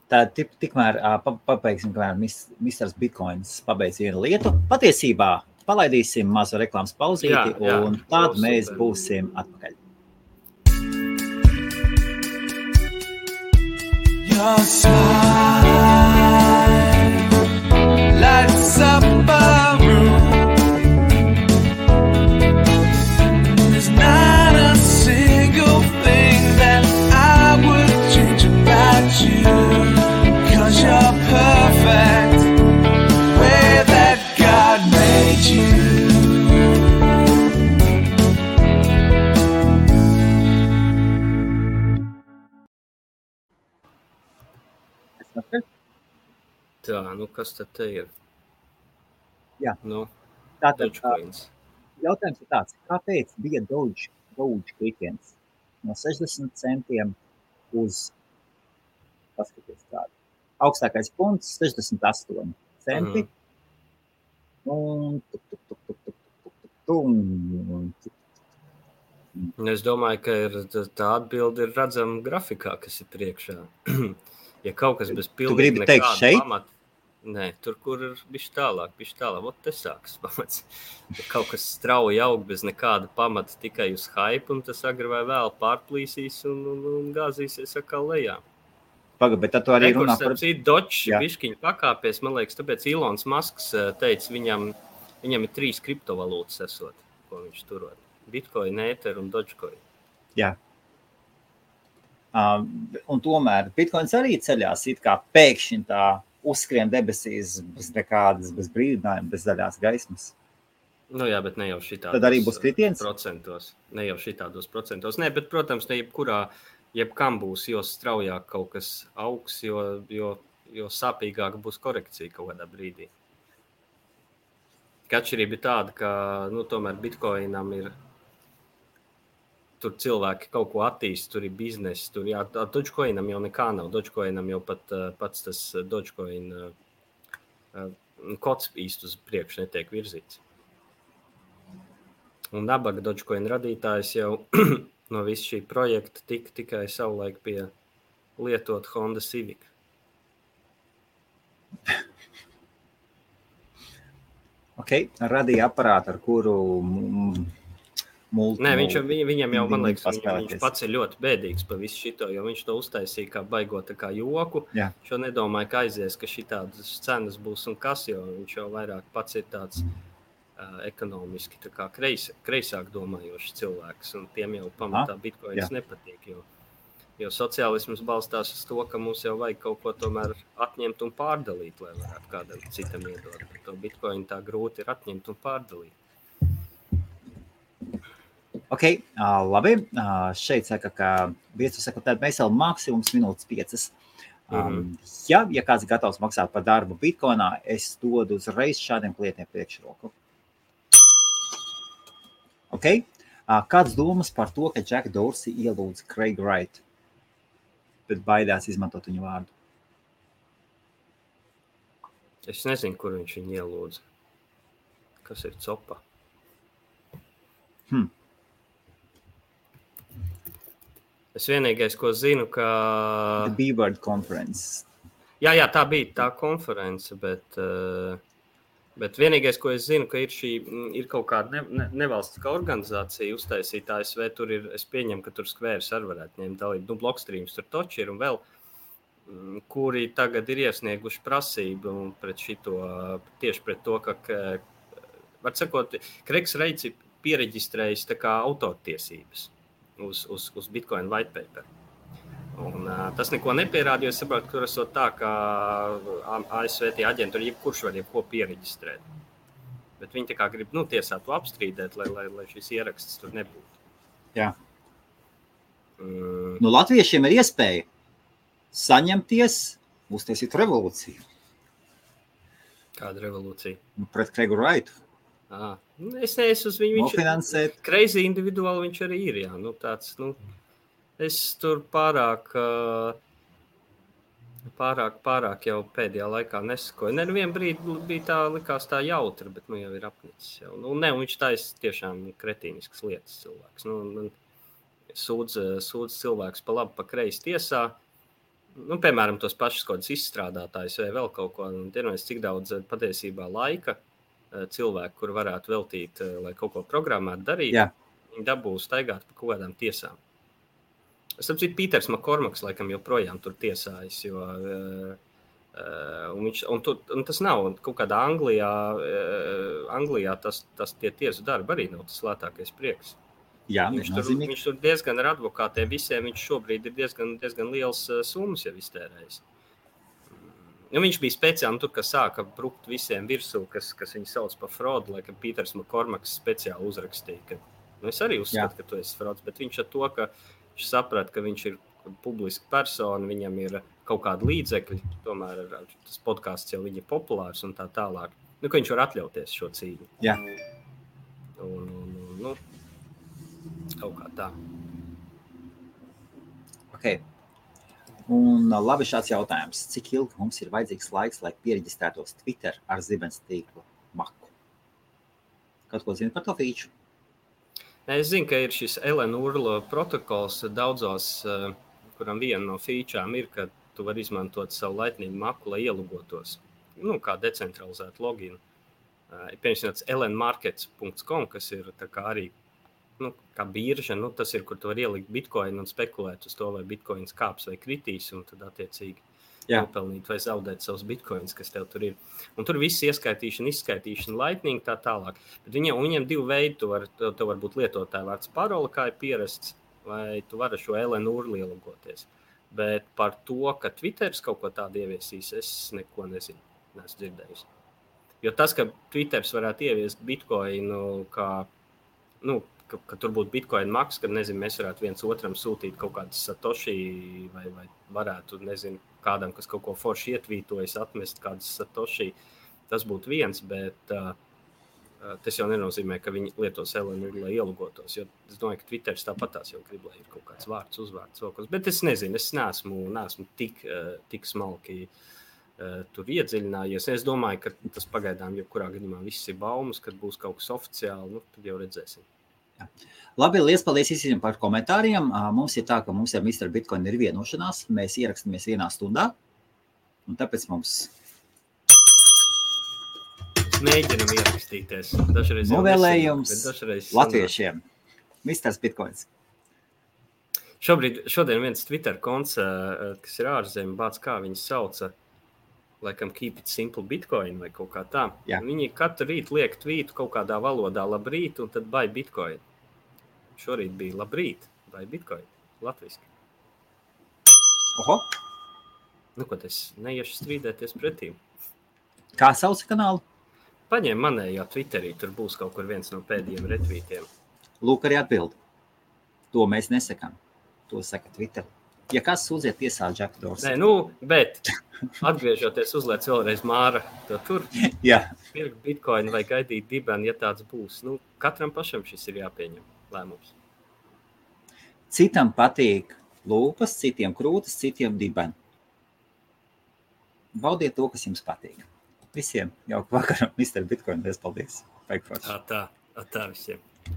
Tā tikmēr pabeigsim, kamēr Misters Bitcoins pabeidz vienu lietu. Patiesībā palaidīsim mazu reklāmas pauzīti, un tad mēs būsim atpakaļ. Your smile lights up a room. There's not a single thing that I would change about you, 'cause you're perfect the way that God made you. Tā, kas tad te ir? Jā. Tātad, jautājums ir tāds, kāpēc bija Doge klikiens no 60 centiem uz, paskaties tādu, augstākais punkts 68 centi, un es domāju, ka tā atbilde ir redzama grafikā, kas ir priekšā. Ja kaut kas bez pilnīgi nekāda pamata. Nē, tur, kur ir bišķi tālāk. Ot, te sākas pamats. Ja kaut kas strauji aug bez nekāda pamata, tikai uz hype, un tas agri vai vēl pārplīsīs un gāzīsies atkal lejā. Pagaid, bet tad tu arī runā par... Dočs bišķiņu pakāpies, man liekas, tāpēc Ilons Masks teica, viņam ir 3 kriptovalūtas esot, ko viņš turot. Bitcoin, Ether un Dogecoin. Jā. Un tomēr Bitcoins arī ceļās it kā pēkšņi tā uzskrien debesīs bez nekādas, bez brīdinājuma, bez zaļās gaismas. Nu jā, bet ne jau šitādos Tad arī būs kritiens? procentos. Ne jau šitādos procentos. Nē, bet, protams, ne jebkam būs, jo straujāk kaut kas augs, jo sāpīgāk būs korekcija kaut kādā brīdī. Atšķirība ir tāda, ka tomēr Bitcoinam ir tur cilvēki kaut ko attīst, tur ir biznesi, tur Dogecoinam jau nekā nav. Dogecoinam jau pats tas Dogecoin kods īsti uz priekšu netiek virzīts. Un nabaga Dogecoin radītājs jau no visu šī projekta tikai savulaik pie lietot Honda Civic. Radīja aparātu, ar kuru Nē, viņam jau, man liekas, viņš pats ir ļoti bēdīgs par visu šito, jo viņš to uztaisīja kā baigot kā joku. Jā. Šo nedomāju, ka aizies, ka šitādas cenas būs un kas, jo viņš jau vairāk pats ir tāds ekonomiski tā kā kreisāk domājošs cilvēks, un tiem jau pamatā Bitcoins nepatīk, jo sociālisms balstās uz to, ka mums jau vajag kaut ko tomēr atņemt un pārdalīt, lai varētu kādam citam iedot. Bet to Bitcoin tā grūti ir atņemt un pārdalīt. Labi. Šeit saka, ka viesu saka, tad mēs vēl maksimums minūtes 5. Ja kāds ir gatavs maksāt par darbu Bitcoinā, es dodu uzreiz šādiem klientiem priekšroku. Kāds domas par to, ka Jack Dorsey ielūdz Craig Wright, bet baidās izmantot viņu vārdu? Es nezinu, kur viņš viņu ielūdz. Kas ir copa? Es vienīgais, ko zinu, ka... The B-Word Conference. Jā, tā bija tā konference, bet vienīgais, ko es zinu, ka ir kaut kāda nevalstiskā organizācija uztaisīta ASV, tur ir, es pieņemu, ka tur Squares arī varētu ņemt dalību, Blockstreams tur toči ir un vēl, kuri tagad ir iesnieguši prasību pret šito, tieši pret to, ka, var sakot, Creigs Wrights ir piereģistrējis tā kā autortiesības uz Bitcoin white paper. Un tas neko nepierāda, jo es saprotu, ka tur esot tā, ka ASV tie aģenturi jebkurš var jebko piereģistrēt. Bet viņi tā kā grib tiesā to apstrīdēt, lai šis ieraksts tur nebūtu. Jā. Latviešiem ir iespēja saņemties, uztaisīt revolūciju. Kāda revolūcija? Pret Craigu Wrightu. Es neesmu uz viņu, viņš crazy individuāli viņš arī ir, jā, tāds, es tur pārāk jau pēdējā laikā nesakoju. Nevien brīdi bija tā, likās tā jautra, bet jau ir apnicis jau. Viņš taisa tiešām kretīniskas lietas cilvēks. Sūdz cilvēks pa labi, pa kreisi tiesā. Piemēram, tos pašus kādas izstrādātājus vai vēl kaut ko. Cik daudz patiesībā laika cilvēku, kur varētu veltīt, lai kaut ko programmētu darīt, viņi dabūs staigāt pa kaut kādām tiesām. Es saprotu, Pīters Makormaks laikam joprojām tur tiesājas, jo un tas nav kaut kādā Anglijā tas tie tiesu darbi arī nav tas lētākais prieks. Jā, viņš tur diezgan ar advokātiem visiem, viņš šobrīd ir diezgan liels summas jau iztērējis. Viņš bija speciāli tur, kas sāka brukt visiem virsū, kas viņu sauc par fraudu, laikam Pīters Makormaks speciāli uzrakstīja, ka es arī uzskatu, ka tu esi frauds, bet viņš ar to, ka viņš saprata, ka viņš ir publiska persona, viņam ir kaut kādi līdzekļi, tomēr tas podcasts jau viņa ir populārs un tā tālāk, ka viņš var atļauties šo cīņu. Jā. Un kaut kā tā. Un labi šāds jautājums. Cik ilgi mums ir vajadzīgs laiks, lai piereģistrētos Twitter ar zibens tīklu maku? Kaut ko zini par to feature? Es zinu, ka ir šis Ellen Urlo protokols daudzos, kuram viena no feature'ām ir, ka tu vari izmantot savu Lightning maku, lai ielogotos. kā decentralizētu loginu. Piemēram, lnmarkets.com, kas ir tā kā arī kā birža, tas ir, kur tu var ielikt bitcoin un spekulēt uz to, vai bitcoins kāps vai kritīs, un tad attiecīgi nopelnīt vai zaudēt savus bitcoins, kas tev tur ir. Un tur viss ieskaitīšana, izskaitīšana, Lightning tā tālāk. Bet viņiem divi veidi, tu var būt lietotāja vārds parola, kā ir pierasts, vai tu vari šo LNUR ielogoties. Bet par to, ka Twitteris kaut ko tādu ieviesīs, es neko nezinu, neesmu dzirdējis. Jo tas, ka Twitteris varētu ieviest bitcoinu, ka tur būtu bitcoin maks, kad, nezinu, mēs varētu viens otram sūtīt kaut kādas satoshi vai varētu, nezinu, kādam, kas kaut ko forši ietvītojas, atmest kādas satoshi, tas būtu viens, bet tas jau nenozīmē, ka viņi lietos LNUR, lai ielogotos, jo es domāju, ka Twitteris tāpatās jau grib, lai ir kaut kāds vārds, uzvārds, vēl kaut kas, bet es nezinu, es neesmu tik smalki tur iedziļinājies. Es domāju, ka tas pagaidām jebkurā gadījumā viss ir baumas, kad būs kaut kas oficiāli, tad jau redzēsim. Jā. Labi, liels paldies visiem par komentāriem. Mums ir tā, ka mums ar Mr. Bitcoin ir vienošanās. Mēs ierakstamies 1 stundā. Un tāpēc mums... Mēģinam ierakstīties. Dažreiz novēlējums latviešiem. Mr. Bitcoins. Šodien viens Twitter konts, kas ir ārzemē, bāc kā viņu sauca, laikam Keep It Simple Bitcoin vai kaut kā tā. Jā. Viņi katru rītu liek tvītu kaut kādā valodā labrīt un tad buy Bitcoin. Šorīt bija labrīt, buy Bitcoin, latviski. Oho. Ko tas neiešu strīdēties pretīm. Kā sauc kanālu? Paņem manējā Twitterī, tur būs kaut kur viens no pēdējiem retvītiem. Lūk, arī atbildi. To mēs nesakām. To saka Twitter. Ja kas sūdziet tiesā Jack Dorsey. Nē, bet atgriežoties uzliec vēlreiz Māra, to tur pirkt Bitcoin vai gaidīt dibeni, ja tāds būs. Katram pašam šis ir jāpieņem lēmums. Citam patīk lūpas, citiem krūtis, citiem dibeni. Baudiet to, kas jums patīk. Visiem jauku vakaru, Mr. Bitcoin, paldies. Tā visiem.